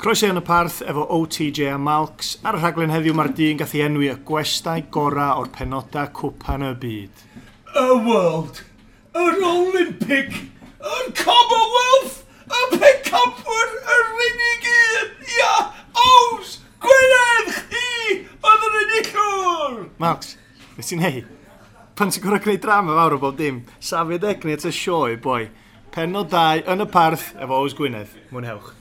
Croeso yn y parth efo OTJ a Malks. Ar y rhaglen heddiw mae'r dyn gath ei enwi y gwestai gorau o'r penodau cwpan y byd. Y World, yr Olympic, yr Commonwealth, y Pencampwyr, yr unig un, ia, Ows, Gwynedd, chi, oedd yr enillwr! Malks, beth ti'n neud? Pan ti'n gorau gwneud drama fawr o bob dim, safio degni at y sioe, boi. Penod 2 yn y parth efo Ows Gwynedd. Mwynhewch.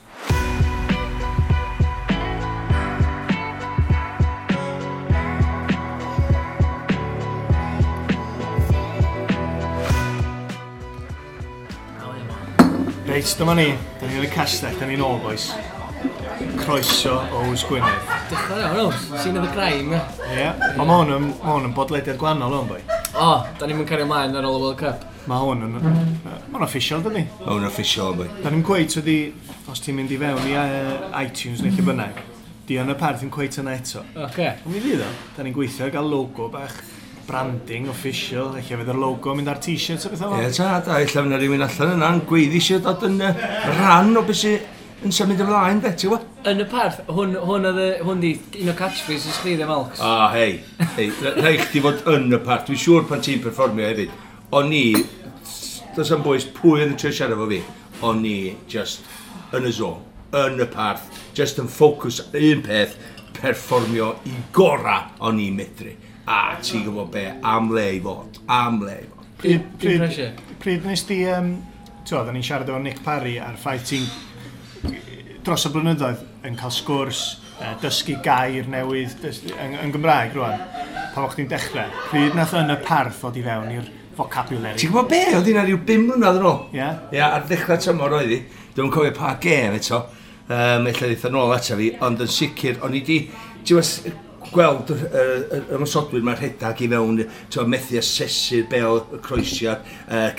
Reit, dyma ni. Da ni yn y castell, da ni'n ôl, boys. Croeso Ows Gwynedd. Dechrau iawn, Ows. Scene of the crime, ie. Ie. Yeah. Ond mae hwn yn, ma hwn yn bodlediad gwahanol o'n boi. O, da ni'n cario ymlaen ar ôl y World Cup. Mae hwn yn... Mae hwn official, dydi? Mae hwn official, boi. Da ni'n cweit wedi, os ti'n mynd i fewn i iTunes neu lle bynnag, di yn y parth yn cweit yna eto. Oce. Ond mi fydd o. Da ni'n gweithio ar gael logo bach, branding official, lle fydd yr logo yn mynd ar t-shirts a bethau fel. Ie, ta, da, ella fyna rhywun allan yna'n gweiddi eisiau dod yn rhan o beth sy'n yn symud ymlaen, de, ti'n gwybod? Yn y parth, hwn, hwn oedd hwn di un o catchphrases chdi, de, Malks. Ah, hei, hei, rhaid chdi fod yn y parth. Dwi'n siŵr pan ti'n perfformio hefyd. O'n i, does am bwys pwy oedd yn trio siarad efo fi, o'n i just yn y zone, yn y parth, just yn ffocws un peth, perfformio i gora o'n i'n medru. A ti'n gwybod be, am le i fod, am le i fod. Pryd, Dim pressure. pryd nes di, ti'n oedden ni'n siarad efo Nick Parry a'r ffaith ti'n dros y blynyddoedd yn cael sgwrs, dysgu gair newydd yn Gymraeg rwan, pan o'ch chdi'n dechrau. Pryd nath yn y parth ddod i fewn i'r vocabulary? Ti'n gwybod be, oedd hynna rhyw 5 mlynedd yn ôl? Ie? Ie, ar ddechrau tymor oedd hi. Dwi'n cofio pa gêm eto. Ella ddeith yn ôl ata fi, ond yn sicr, o'n i di, ti'n gwbod, gweld yr ymosodwyr mae'r rhedag i fewn, ti'n gwbod, methu asesu'r bel, y croesiad,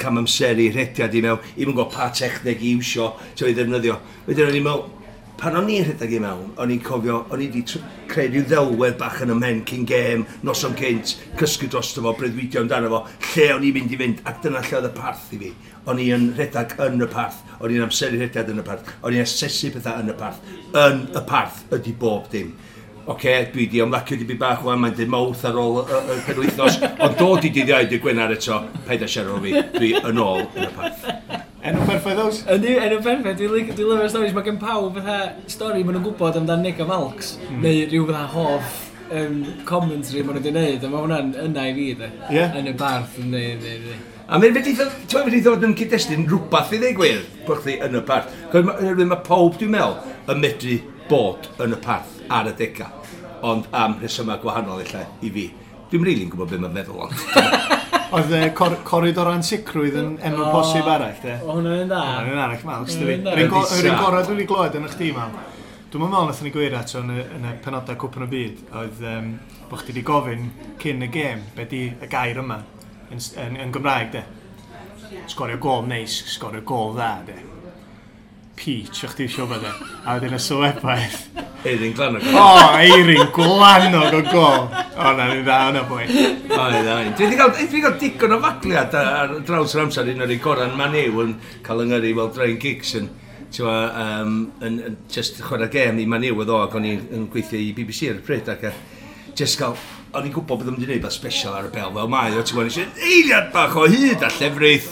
cam amseru, rhediad i mewn, i'm yn gwybod pa techneg i iwsio, ti'n gwbod, i ddefnyddio. Wedyn o'n i'n meddwl, pan o'n i'n rhedeg i mewn, o'n i'n cofio, o'n i wedi creu rhyw ddelwedd bach yn y mhen cyn gêm, noson cynt, cysgu drosto fo, breuddwydio amdano fo, lle o'n i'n mynd i fynd, ac dyna lle oedd y parth i fi. O'n i yn rhedeg yn y parth, o'n i'n amseru rhediad yn y parth, o'n i'n asesu pethau yn y parth. Yn y parth ydy bob dim. Oce, dwi di ymlacio dipyn bach wan, mae'n dweud mawrth ar ôl y penwythnos, ond dod i dydd Iau, dydd Gwener eto, paid â siarad efo fi, dwi yn ôl yn y parth. Enw perffaith Ows? Yndi, enw perffaith. Dwi'n lyfio'r stories. Mae gen pawb fatha stori maen nhw'n gwybod amdan Nick a Malks, neu rhyw fatha hoff commentary maen nhw wedi gwneud, a mae hwnna'n yna i fi, de. Ie. Yn y barth, yndi, yndi, yndi. A mae'n mynd i ddod, ti'n mynd i ddod yn cyd-destun rhywbeth i ddweud gwir, bod chdi yn y parth. Cos mae pawb, dwi'n meddwl, yn medru bod yn y parth ar y dega, ond am rhesymau gwahanol ella i fi. Dwi'm rili'n gwybod beth mae'n meddwl, ond. Oedd coridor ansicrwydd yn enw posib arall, de? O, hwnna'n un dda. Hwnna'n un arall, Malks, dydi? Hwnna'n un dda. Yr un gorau dwi wedi glywed yn y chdi, Mal. Dwi'm yn meddwl nathon ni gweir ato yn y penodau Cwpan y Byd, oedd bod chdi wedi gofyn cyn y gêm, be di y gair yma yn Gymraeg, de? Sgorio gôl neis, sgorio gôl dda, de? Peach, o'ch ti eisiau bod e. A wedyn y sylwebaeth. Eirin Glanog. O, Eirin Glanog o gôl. O, na, ni'n dda yna, boi. O, ni'n dda. Dwi wedi cael digon o fagliad ar draws yr amser, un o'r un gorau yn Man U yn cael yng Nghymru fel Ryan Giggs yn, ti'n gwbod, yn just chwarae gêm i Man U oedd o, ac o'n i'n gweithio i BBC ar y pryd, ac just cael, o'n i'n gwybod bod o'n mynd i wneud beth special ar y bel fel mae o, ti'n gwybod, nes i eiliad bach o hyd a llefrith.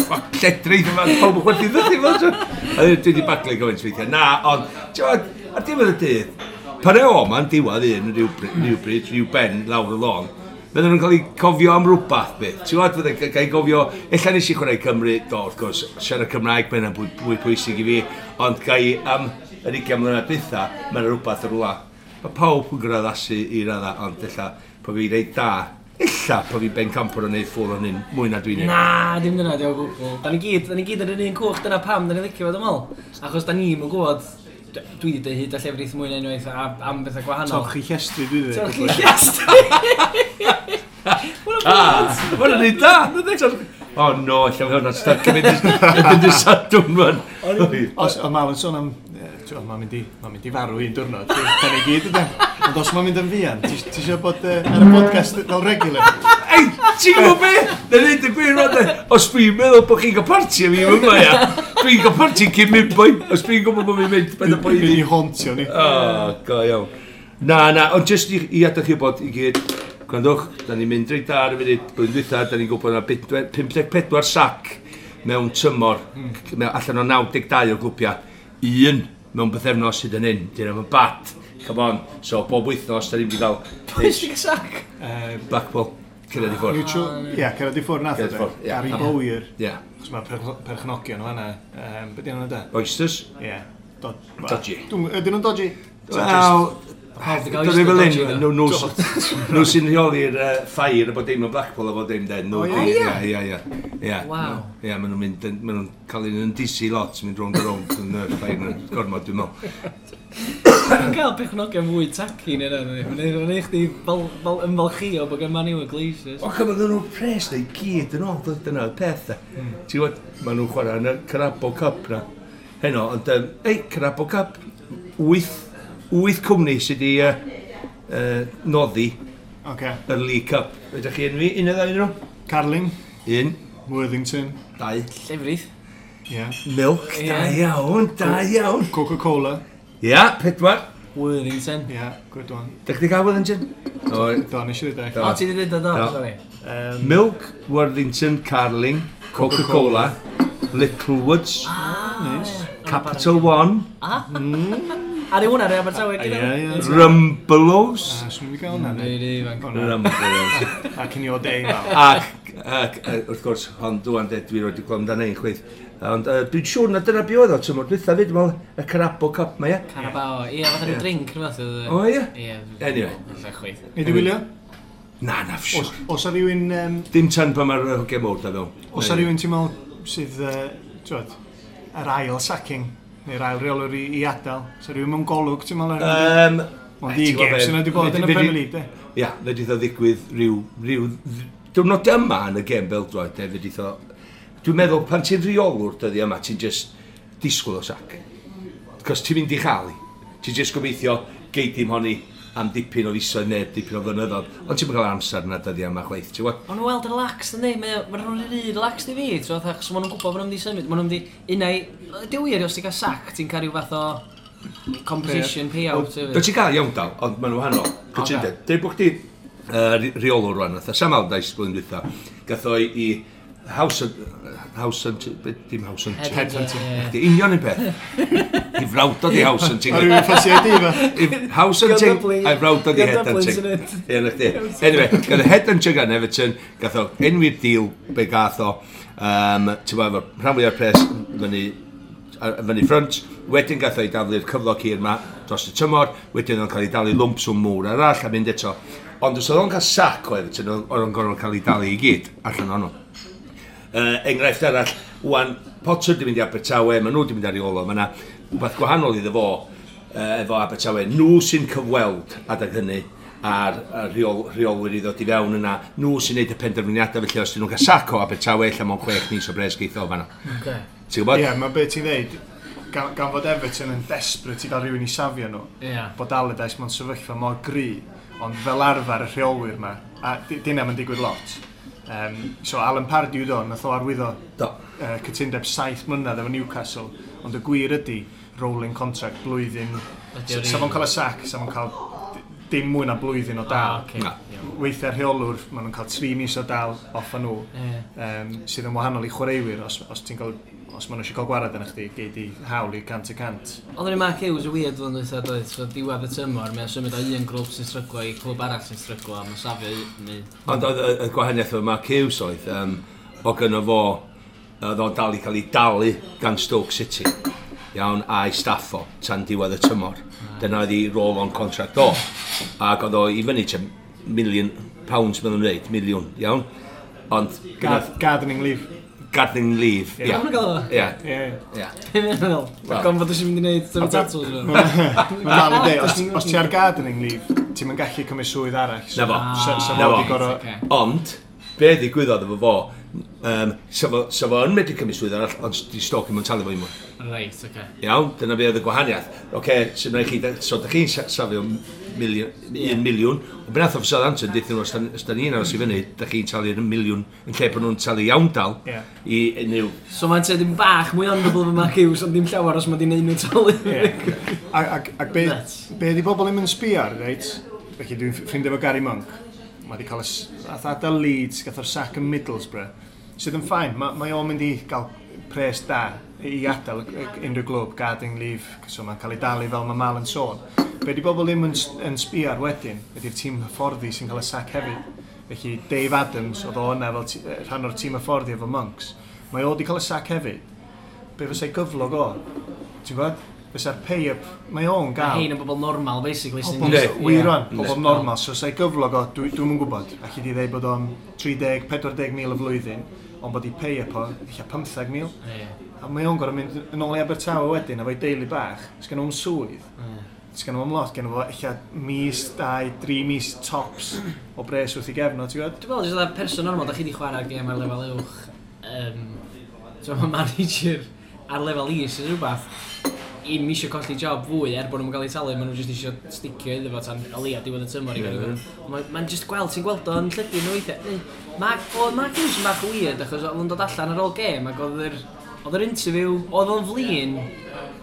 Fuck, lledrith yma, pawb yn chwerthin ddydi fel, ti'n gwbod. A dwi wedi baglu gymaint weithiau. Na, ond, ti'n gwbod, ar diwedd y dydd, pan e o ma'n diwedd un rhywbryd, rhyw ben lawr y lôn, fydden nhw'n cael eu cofio am rhywbeth beth. Ti'n gwbod, fydden nhw'n cael eu cofio, ella nes i chwarae Cymru, do, wrth gwrs, siarad Cymraeg, mae hynna'n fwy pwysig i fi, ond gai am yr 20 mlynedd dwytha, mae'n rhywbeth ar rwla. Mae pawb yn gorfod addasu i radda, ond ella, po fi reit da, ella po fi bencampwr yn neud ffwl o'n hyn, mwy na dwi'n neud. Na, dim dyna, diolch o gwbl. Da ni gyd ar yr un cwch, dyna pam da ni'n licio fo, dwi'n meddwl. Achos da ni'm yn gwybod, dwi wedi deud hyd a llefrith mwy na unwaith am bethau gwahanol. Torchi llestri, dwi wedi. Torchi llestri! Ah, ma' hwnna'n neud da! O no, ella mae hwnna'n stuck yn mynd i'r Sadwrn rwan. Os, o, Mal yn sôn am, ti'n gwbod, mae'n mynd i farw un diwrnod, da ni gyd ydyn. Ond os mae'n mynd yn fuan, ti isio bod ar y podcast fel regular? Ei, ti'n gwybod be? Na neud y gwir rwan, de. Os dwi'n meddwl bod chi'n cael parti am fi yma, ia. Dwi'n gael parti cyn mynd, boi. Os dwi'n gwybod bod fi'n mynd, beth y boi Fydd i hauntio ni. Oh, go iawn. Na, na, ond jyst i adael chi bod i gyd, gwrandwch, da ni'n mynd reit da ar y funud, blwyddyn dwytha, da ni'n gwybod na 54 sac mewn tymor, allan o 92 o glwbiau, un mewn bythefnos sydd yn hyn, dyn nhw'n bad, come on. So, bob wythnos, da ni'n mynd i gael Pwy sy'n gael sac? Blackpool, cyrraedd i ffwrdd. Neutral, ie, cyrraedd i ffwrdd nath o. Cyrraedd i ffwrdd, ie. Gary Bowyer. Ie. Chos mae perchnogion o fan'na. Be di enw da? Oysters. Ie. Dodgy. Ydyn nhw'n dodgy? Wel, Pawb 'di gael Dyna fel oyster un, dodgy, nhw nhw sy'n rheoli'r ffair a bod dim yn Blackpool a bod dim den. O, Nhw ie? di, ie, ie, ie. Waw. Ie, maen nhw'n mynd, maen nhw'n cael un yn disi lot, mynd rownd a rownd yn y ffair yn gormod, dwi'n meddwl. Mae'n cael pechnogion fwy tacky neu yna. Mae'n neud chdi ymfalchio bod gen Man U y Glazers. O, cymryd nhw'n pres na i gyd yn ôl, dyna'r peth. de. Ti'n gwybod, maen nhw'n chwarae yn y Carabao Cup na. Heno, ond, ei, Carabao Cup, 8 cwmni sydd wedi noddi Oce. yr League Cup. Ydych chi enwi un neu ddau nhw? Carling, Un, Worthington, dau. Llefrith. ie. Milk, Ie. da iawn, da iawn. Coca-Cola, Ia, 4. Worthington. ie, good one. Dych chi gael Worthington? O, Do, nes i ddweud. Do. O, ti wedi dweud o, do, Do. sorry. Milk, Worthington, Carling, Coca-Cola, Littlewoods, Nice. Capital One, Ar yw hwnna, rei Abertawe, Ie, ie. Rumbelows. Ah, swn i'n gael hwnna. Rei, rei, ifanc. Rumbelows. Ac yn i o day mal. Ac, wrth gwrs, hon dwan de, dwi roed i glwm dan ein chweith. Ond dwi'n siŵr na dyna be oedd o, tymor dwytha fyd, dwi'n meddwl, y Carabao Cup ma, ie? Carabao. Ie, fatha rhyw drink, rhywbeth. oedd e. O, ie? Ie. Anyway. Ella chweith. Nei di wylio? Na, na, siŵr. Os a rhywun, Dim tan pan mae'r hogia mowr da fewn. os a rhywun ti'n meddwl sydd, ti'n yr ail sacking, neu'r ail reolwr i adael, os a rhywun mewn golwg, ti'n meddwl? Ond i gêm sy'n wedi bod yn y Premier League, de. Ia, fedrith o ddigwydd rhyw diwrnod yma yn y gêm beldroed, de, fedrith o. Dwi'n meddwl, pan ti'n rheolwr dyddi yma, ti'n just disgwyl o sac. Cos ti'n mynd i chael i. Ti'n just gobeithio gei dim honni am dipyn o fisoedd neu dipyn o flynyddoedd. Ond ti'n cael amser yna dyddi yma chwaith, ti'n gwybod? Ond nhw weld relaxed, yndi? Mae nhw'n rhy relaxed i fi, ti'n gwbod, achos maen nhw'n gwybod bod nhw'n mynd i symud. Maen nhw'n mynd i... Unai... Di wir, os ti'n cael sac, ti'n cael rhyw fath o compensation payout. Do hefyd. ti'n gael iawn dal, ond maen nhw wahanol. Cytundeb. Deud bod chdi rheolwr rwan, fatha Sam Allardyce blwyddyn dwytha, gath o i House House Hunting, dim House Hunting. Headhunting. Ie. Di union un peth. I frawd o di House Hunting. A rhywun ffansi ID fa? I House Hunting, Dublin. a'i frawd o di Dio Dublin Headhunting. sy'n Ie, na chdi. Anyway, gath o Headhunting gan Everton, gath o enwi'r deal be gath o, ti'n gwbod, efo rhan fwyaf o'r pres fyny ffrynt, wedyn gath o ei daflu'r cyflog hir ma dros y tymor, wedyn o'n cael ei dalu lwmp swm mowr arall a mynd eto. Ond os oedd o'n cael sac o Everton, oedd o'n gorfod cael ei dalu i gyd allan ohonno. Enghraifft arall, wan, Potter di mynd i Abertawe, maen nhw di mynd ar ei ôl o, mae yna rhywbeth gwahanol iddo fo efo Abertawe. Nhw sy'n cyfweld adeg hynny a'r rheolwyr i ddod i fewn yna, nhw sy'n neud y penderfyniadau, felly os dyn nhw'n cael sac o Abertawe, ella mewn 6 mis o bres geith o fanna. Ocê. Ti'n gwybod? Ie, mae beth ti'n dweud, gan fod Everton yn desperate i gael rhywun i safio nhw, Ie. bod Allardyce mewn sefyllfa mor gry, ond fel arfer y rheolwyr ma, a dyna mae'n digwydd lot. So Alan Pardew do, nath o arwyddo Do. cytundeb 7 mlynedd efo Newcastle, ond y gwir ydy rolling contract blwyddyn. Ydy o'r Sa fo'n un? cael y sac, sa fo'n cael dim mwy na blwyddyn o dal. Ah, ocê. Na. Iawn. Weithiau rheolwr, maen nhw'n cael 3 mis o dal off a nhw, Ie. sydd yn wahanol i chwaraewyr, os ti'n cael, os maen nhw eisiau cael gwared yn chdi, gei di hawl i 100%. Oedd yr un Mark Hughes y weird flwyddyn dwytha doedd, so diwedd y tymor, mae'n symud o un grŵp sy'n stryglo i clwb arall sy'n stryglo, a mae'n safio neu... Ond oedd y gwahaniaeth efo Mark Hughes oedd, o gynno fo, oedd o'n dal i cael ei dalu gan Stoke City, iawn, a'i staff o, tan diwedd y tymor. Dyna oedd ei roll-on contract o. Ac oedd o i fyny tua £1 million, maen nhw'n dweud, miliwn, iawn. Ond, Gardening leave. gardening leave, Ie. ia. Maen nhw'n gael o? Ia, Ie. ia. Be mae'n meddwl? Wel. Gan fod eisiau mynd i wneud tyfu tatws nhw. Mae'n dal i dweud, os ti ar gardening leave, ti'n mynd gallu cymryd swydd arall. Na fo. So Na fo fo. di gorfod. Ocê. Ond, be ddigwyddodd efo fo, Sa fo yn medru cymryd swydd arall, ond di Stoke ddim yn talu fo i mwy. Reit, oce. Okay. Iawn, dyna be oedd y gwahaniaeth. Oce, okay, so na chi, so da chi'n safio miliwn, 1 miliwn, ond be nath o Southampton, deuthon nhw, os da ni'n aros i fyny, da chi'n talu 1 miliwn, yn lle bod nhw'n talu iawndal i unrhyw. So mae'n dim bach mwy honourable fy Mark Hughes, ond dim llawer os mae di neud nhw talu. Ie. Ac be, Nuts. be di bobl ddim yn sbio ar, reit? Felly dwi'n ffrindiau efo Gary Monk. Mae wedi cael y nath adael Leeds, gath o'r sac yn Middlesbrough. Sydd yn fine, mae o'n mynd i gael pres da i adael unrhyw glwb, gardening leave, so mae'n cael ei dalu fel mae Mal yn sôn. Be di bobl ddim yn sbio ar wedyn, ydy'r tîm hyfforddi sy'n cael y sac hefyd. Felly Dave Adams, oedd o yna fel rhan o'r tîm hyfforddi efo Monks, mae o wedi cael y sac hefyd. Be fysa'i gyflog o? Ti'n gwybod? Fysa'r pay-up, mae o'n Mae gael. hein yn bobl normal, basically. Sy'n Pobl, Yndi. wir rwan, Yndi. pobl normal, so sa'i gyflog o, dwi'm yn gwybod, allu di ddeud bod o'n 30-40 mil y flwyddyn, ond bod i pay-up o, ella 15 mil. A mae o'n gorfod mynd yn ôl i Abertawe wedyn, efo'i deulu bach, sgan nhw'n swydd, sgan nhw'n lot, gen fo ella mis, 2, 3 mis tops o bres wrth i gefn o, ti'n gwybod? Dwi'n meddwl, jyst fatha person normal, da chi di chwarae gêm ar lefel uwch. So mae manager ar lefel is yn rhywbeth, i'm eisiau colli job fwy er bod nhw'n cael eu talu, maen nhw jyst eisiau sticio iddo fo tan o leia diwedd y tymor i gael. Mae'n jyst gweld, ti'n gweld o'n llygu nhw weithiau. Oedd Mark Hughes yn bach weird achos oedd o'n dod allan ar ôl gêm ac oedd yr interview, oedd o'n flin,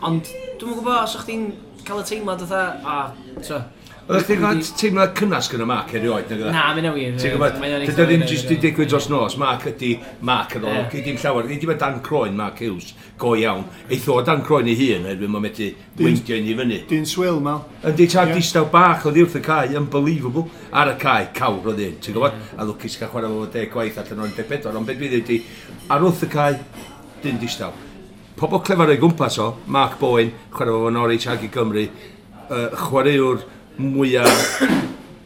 ond dwi'm yn gwybod os o'ch chdi'n cael y teimlad fatha, a, so. Oeddech chdi'n cael teimlad cynnas gyda Mark erioed, nag oedd? Na, mae'n wir. Ti'n gwybod, Mae o'n dydy eitha o ddim wir, jyst di digwydd dros nos, Mark ydi Mark yn ôl, gei dim llawer, gei dim dan croen Mark Hughes, go iawn. Eith o dan croen ei hun, oherwydd mae'n medru weindio un i fyny. Dyn swil, Mal. Yndi, tad distaw bach oedd wrth y cae, unbelievable. Ar y cae, cawr oedd un, ti'n gwybod? A lwcus cael chwarae fo 10 gwaith allan o'r 14, ond beth dwi ddweud i, ar wrth y cae, dyn distaw. Pobl clefar o'i gwmpas o, Mark Bowen, chwarae fo Norwich ag i Gymru, chwaraewr mwyaf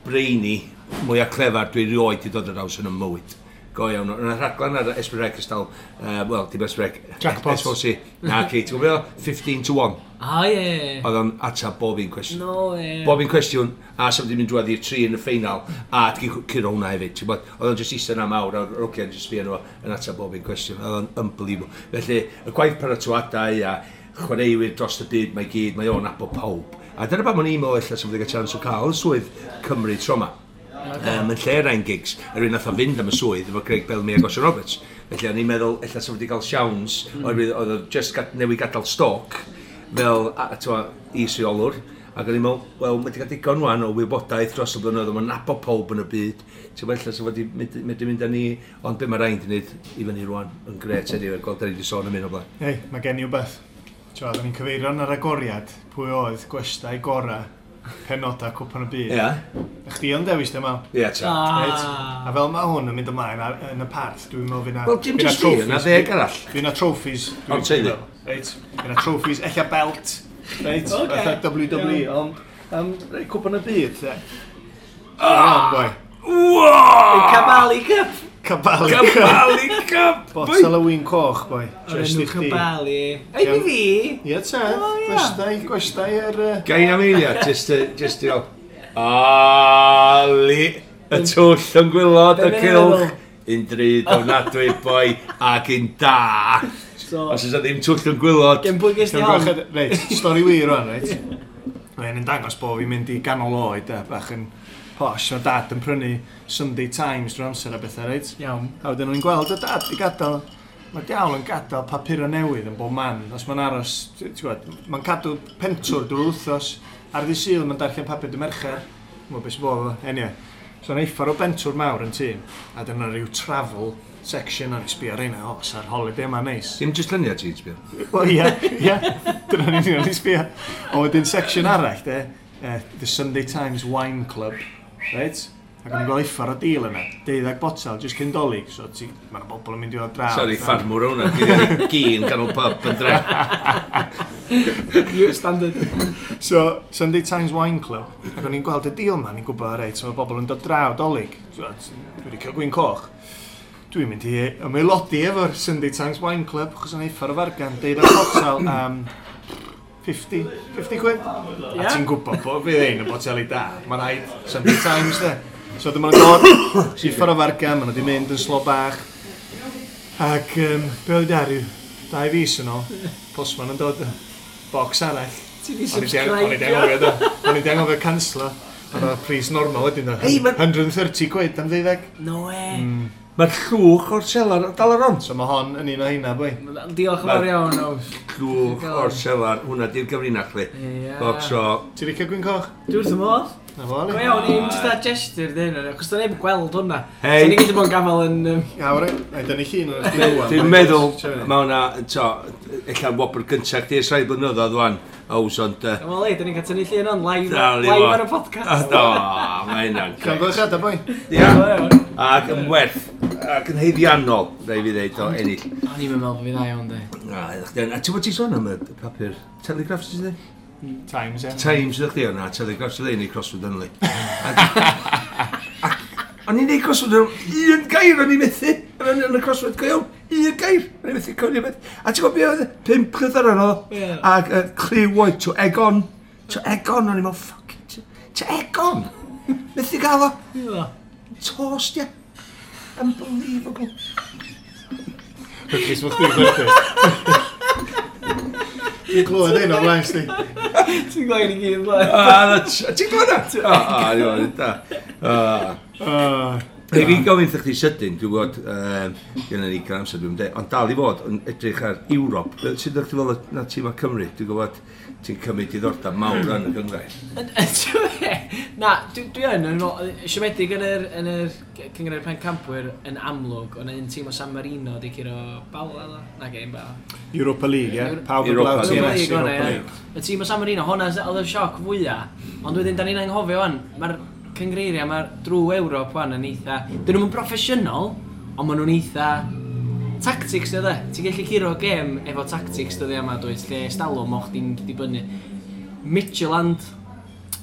brainy, mwyaf clefar dwi rioed di dod ar draws yn y mywyd. Go iawn. Yna rhaglen ar S4C ystal, wel, dim S4C. Jackpot. S4C. Na, ci, ti'n gwybod? 15 to 1. A, ie. Oedd o'n atab bob un cwestiwn. No, ie. Bob un cwestiwn, a sef wedi mynd drwodd i'r tri yn y ffeinal, a di curo hwnna hefyd. Ti'n gwbod, oedd o'n just eistedd yna mawr, a'r hogiau'n just sbio nhw yn atab bob un cwestiwn. Oedd o'n unbelievable. Felly, y gwaith paratoadau a chwaraewyr dros y byd mae gyd, mae o'n nabod pawb. A dyna pam o'n i'n meddwl ella sef wedi cael chance o cael y swydd Cymru tro 'ma. Yn lle Ryan Giggs, yr un nath o fynd am y swydd efo Craig Bellamy ac Osian Roberts. Felly o'n i'n meddwl ella sef wedi cael siawns, oherwydd oedd o just newydd gadael Stoke fel t'mo, is-reolwr. Ac o'n i'n meddwl, wel, mae wedi cael digon wan o wybodaeth dros y blynyddoedd, mae'n nabod pawb yn y byd. Ti'n meddwl, ella sef wedi mynd mynd â ni, ond be mae Ryan wedi gwneud i fyny rwan, yn gret anyway, gweld da ni wedi sôn am hyn o blaen. Ei, mae gen i wbeth. Ti'n oedden ni'n cyfeirio yn yr agoriad pwy oedd gwestai gora penodau Cwpan y Byd. Ie, A chdi o'n dewis dim Mal. ie, ta. Reit. A fel mae hwn yn mynd ymlaen yn y parth, dwi'n meddwl fydd na Wel, dim fydd na jyst fi, yna trophies. 10 arall. Fydd na trophies. Ond teulu. Reit. Fydd na trophies, ella belt. Reit. Ocê. Fatha WWE, ond reit, Cwpan y Byd, de. Ah! Boi. Wow! Cabali Cup! Cabali Cup. Cabali Cup! Botel o win coch, boi. O'r Just enw i chdi. Cabali. Ei, fi fi! Ie, te. O, ie. Gwestai, gwestai yr Gai am eiliad, just i fel... Ali, y twll yn gwylod, y Be' mae'n cylch. feddwl? Un drud ofnadwy, boi, ac un da. So, Os oes 'na ddim twll yn gwylod. gen pwy ges di hon? Reit, stori wir rwan, reit. Mae'n yn dangos bod fi'n mynd i ganol oed, bach yn posh. Mae dad yn prynu Sunday Times drwy amser a bethau, reit. Iawn. A wedyn o'n i'n gweld y dad i gadael, mae diawl yn gadael papurau newydd yn bob man. Os mae'n aros, ti'n gwbod, mae'n cadw pentwr drwy'r wythnos. Ar ddydd Sul mae'n darllen papur dy Mercher. Mwyn beth sy'n bod efo. Anyway, so o'n uffar o bentwr mawr yn tŷ. A dyna rhyw travel section o'n i sbio ar reina, o, sa'r holiday yma neis. Dim jyst lluniau ti'n sbio. Wel, ie. Dyna'n union o'n i sbio. A wedyn section arall, de, The Sunday Times Wine Club, right? Ac o'n i'n gweld uffar o deal yna, 12 botel, just cyn Dolig, so ti, mae'n bobl yn mynd i ddod draw. Sorry, ffarmwr hwnna. Dwi'n gyn ganol pub yn dre. You standard. So, Sunday Times Wine Club, ac o'n i'n gweld y deal ma, ni'n gwybod, reit, so mae bobl yn dod draw Dolig. So, dwi wedi cael gwin coch. Dwi'n mynd i ymaelodi efo'r Sunday Times Wine Club, achos o'n uffar o fargan, 12 botel am 50, 50 quid. A Ie. ti'n gwybod bod fydd ein y boteli da. Mae'n rhaid Sunday Times, de. So dyma nhw'n dod, uffar o fargan, maen nhw wedi mynd yn slo bach. Ac be oedd ar yw, 2 fis yn ôl, postman yn dod, box arall. Ti di O'n i 'di subscribe. anghofio, do. O'n i 'di anghofio canslo. Oedd o pris normal wedyn, do. Hei, 130 quid am ddeuddeg. No way. Mae'r llwch o'r selar dal ar on. So mae hon yn un o heina, boi. Diolch yn fawr iawn, Ows. Llwch o'r selar, hwnna di'r gyfrinach li. Ie. Box o... Ti'n licio gwin coch? Dwi wrth y modd. Na fo, Go Ali. iawn, i'n just a gesture dyn nhw, achos da neb yn gweld hwnna. Hei. So ni gyd yn bod yn gafel yn... Ia, ori. Na i dynnu llun o'r chdi Dwi'n meddwl, mae hwnna, to, ella wobr gyntaf chdi ers rhai blynyddoedd wan, Ows, ond... Wel, ei, da ni'n cael tynnu llun on live, Dal i live fod. ar y podcast. Do, mae hynna'n grêt. Llongyfarchiadau, boi. Ia, Go iawn. ac yn werth, ac yn haeddiannol, rhaid fi ddeud, o ennill. O'n i'n meddwl bod fi dda iawn, di. Na, ydych chdi yn- A ti'n bod ti'n sôn am y papur Telegraph, ti'n dweud? Times, ie. Times, ydych chdi o'na, Telegraph sydd ei crossword yn li. O'n i'n neud crossword yn un gair o'n i'n methu, yn y crossword go iawn, un gair, o'n i'n methu cywir beth. A ti'n gwybod beth oedd? 5 llythyren oedd, Ie. ac cliw oedd, to egg on, to egg on, o'n i'n meddwl, fuck, to egg on, methu gael o, tost, ie. Unbelievable. Lwcus bod chdi'n chwerthin. Dwi'n clywed un o'r blaen, sti. Ti'n gweld i gyd, blaen. Ah, ti'n gwybod na? O, o, da. Ah. Ei, fi'n gofyn wrth chdi sydyn, dwi'n gwybod, gynna ni gael amser dwi'n dweud, ond dal i fod yn edrych ar Ewrop. Sut ydych chi fel na tîm o Cymru? Dwi'n gwybod ti'n cymryd diddordeb mawr yn y gynghrair. Na, dwi yn, siomedig yn yr Cynghrair Pencampwyr yn amlwg, ond un tîm o San Marino di curo Bala, ddo? Na, gêm Bala. Europa League, ie? Pawb yn Europa blaw League. TNS League, Europa hwnna, ie. League. Y tîm o San Marino, hwnna oedd y sioc fwyaf. Ond wedyn, da ni'n anghofio wan, mae'r cyngreiriau, mae'r drwy Ewrop wan yn eitha... Dyn nhw'n broffesiynol, ond maen nhw'n eitha... Tactics, dwi, Ti'n gallu curo gêm efo tactics dyddia yma, dwyt, lle stalwm o'ch di'n dibynnu. Midtjylland,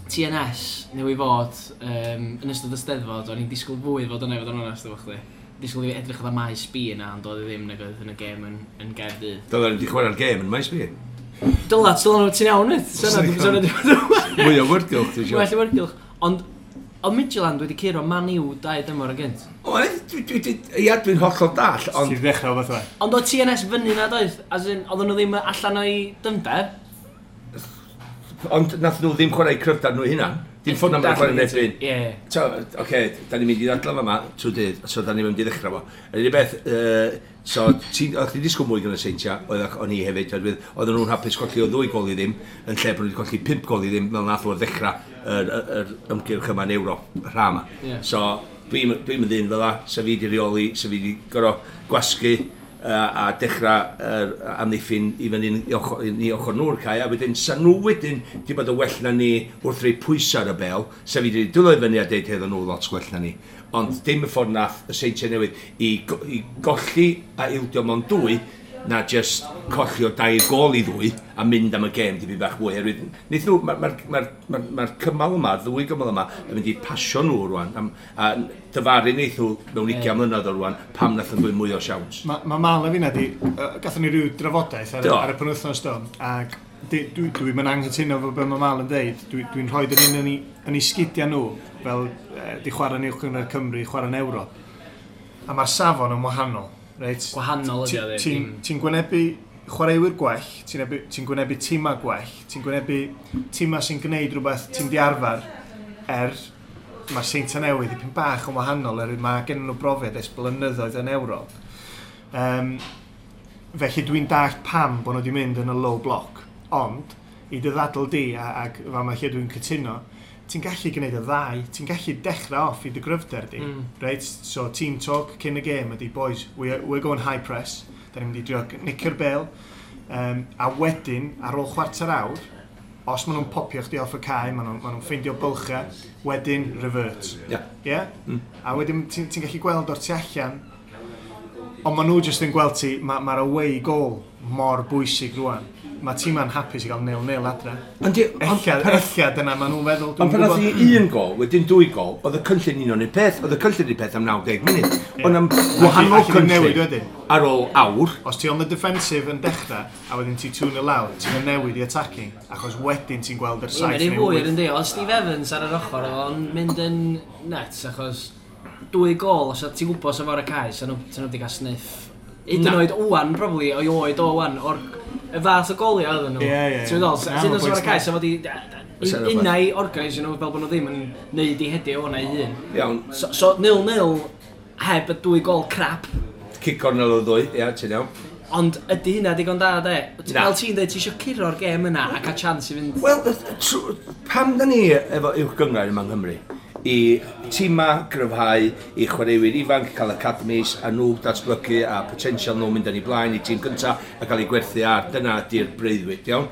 TNS, newy fod, yn ystod y Steddfod, o'n i'n disgwyl fwy fod yna i fod yn onest efo chdi. Disgwyl i fi edrych oedd maes B yna, ond oedd e ddim nag oedd yn y gêm yn Gaerdydd. Dylen ni wedi chwarae'r gêm yn maes B. Dyla, dyla nhw, ti'n iawn, wyt? Syna, Mwy o wyrgylch, ti'n siŵr. Well i wyrgylch. Ond, oedd Midtjylland wedi curo Man U 2 dymor yn gynt. Oedd, ia, dwi'n hollol dall, ond Ti'n ddechrau o beth oe. Ond oedd TNS fyny na doedd? As in, oedden nhw ddim allan o'i dyfnder? Ond nath nhw ddim chwarae cryfder nhw hunan. Dim ffordd na ma'n chwarae yn erbyn. Ie. So, oce, da ni'n mynd i ddadlau fama trwy dydd, so da ni'n mynd i ddechrau fo. Yr unig beth, so, o'ch ti'n disgwyl mwy gan y Seintia, oedd o'n i hefyd, oherwydd oedden nhw'n hapus colli o 2 gol i ddim, yn lle bod nhw wedi colli 5 gol i ddim, fel nath nhw'r ddechrau yr ymgyrch yma yn Ewrop, y rha yma. Ie. So, dwi'n mynd ddyn fel la, sa fi di reoli, sa fi di gorfod gwasgu a dechrau yr amddiffyn i fyny i ochr nhw'r cae, a wedyn sa nhw wedyn di bod yn well na ni wrth rei pwysau ar y bel, sa fi di dwylo i fyny a deud heddo nhw lot gwell na ni. Ond dim y ffordd nath y Seintiau Newydd i golli a ildio mewn 2, na just colli o 2 gôl i 2 a mynd am y gêm dipyn bach mwy. Oherwydd, wnaeth nhw, mae'r cymal yma, ddwy gymal yma, yn mynd i pasio nhw rwan, a dyfaru wnaeth nhw mewn 20 mlynedd o rwan, pam nath nhw mwy o siawns. Mae Mal a finna di, gathon ni ryw drafodaeth Do. ar y penwythnos do, ac dwi'n mynd anghytuno efo be mae Mal yn deud. Dwi'n rhoi yn un yn ei sgidiau nhw, fel di chwarae yn Uwch Gynghrair Cymru, chwarae yn Ewrop. A mae'r safon yn wahanol. Reit? Gwahanol ydi o, ddim. Ti'n gwynebu chwaraewyr gwell, ti'n gwynebu tîmau gwell, ti'n gwynebu tîmau sy'n gwneud rhywbeth ti'n di arfer, mae'r Seintiau Newydd dipyn bach yn wahanol, mae gen nhw brofiad ers blynyddoedd yn Ewrop. Felly dwi'n dallt pam bod nhw wedi mynd yn y low block, ond i dy ddadl di, ac fa ma lle dwi'n cytuno, ti'n gallu gwneud y ddau, ti'n gallu dechrau off i dy gryfder di. Right? So team talk cyn y gêm ydi, boys, we're going high press, da ni'n mynd i drio nicio'r bel, a wedyn, ar ôl chwarter awr, os maen nhw'n popio chdi off y cae, maen nhw'n ffeindio bylchau, wedyn revert. Ie. Ie? A wedyn ti'n gallu gweld o'r tu allan, ond maen nhw jyst yn gweld ti, mae'r away goal mor bwysig rwan. Mae tîma'n hapus i gael 0-0 adre. Ond Ella dyna maen nhw'n feddwl. Ond pan nath i 1 gol, wedyn 2 gol, oedd y cynllun un o'n un peth, oedd y cynllun un peth am 90 munud. Ond am wahanol Alli di newid cynllun wedyn. ar ôl awr, Os ti on the defensive yn dechrau, a wedyn ti 2-0 lawr, ti'n newid i attacking, achos wedyn ti'n gweld yr Ie, 7 mae'n un neu fwy 8. yn di. Oedd Steve Evans ar yr ochr, oedd o'n mynd yn nuts, achos 2 gol, os ti'n gwybod sef ar y cae, so nhw wedi cael sniff Hyd yn oed wan, probably, o'i oed o wan, o'r y fath o goliau oedden nhw. Ie. Ti'n meddwl, Na, sy'n ma'n dod o'r bwynt cae, so fod i Fysa rhywbeth. unai organise nhw fel bod nhw ddim yn neud i hedio o'na i hun. Iawn, So 0-0 heb y dwy gol crap, cic cornel o ddwy, ia, ti'n iawn. Ond ydy hynna digon da, de? Na. Fel ti'n dweud, ti eisiau curo'r gêm yna a cael chance i fynd. Wel, pam da ni efo uwch gynghrair yma yng Nghymru? I tîma gryfhau, i chwaraewyr ifanc cael academies a nhw datblygu a potensial nhw mynd yn ei blaen i tîm cynta a cael ei gwerthu ar. Dyna ydy'r breuddwyd, iawn?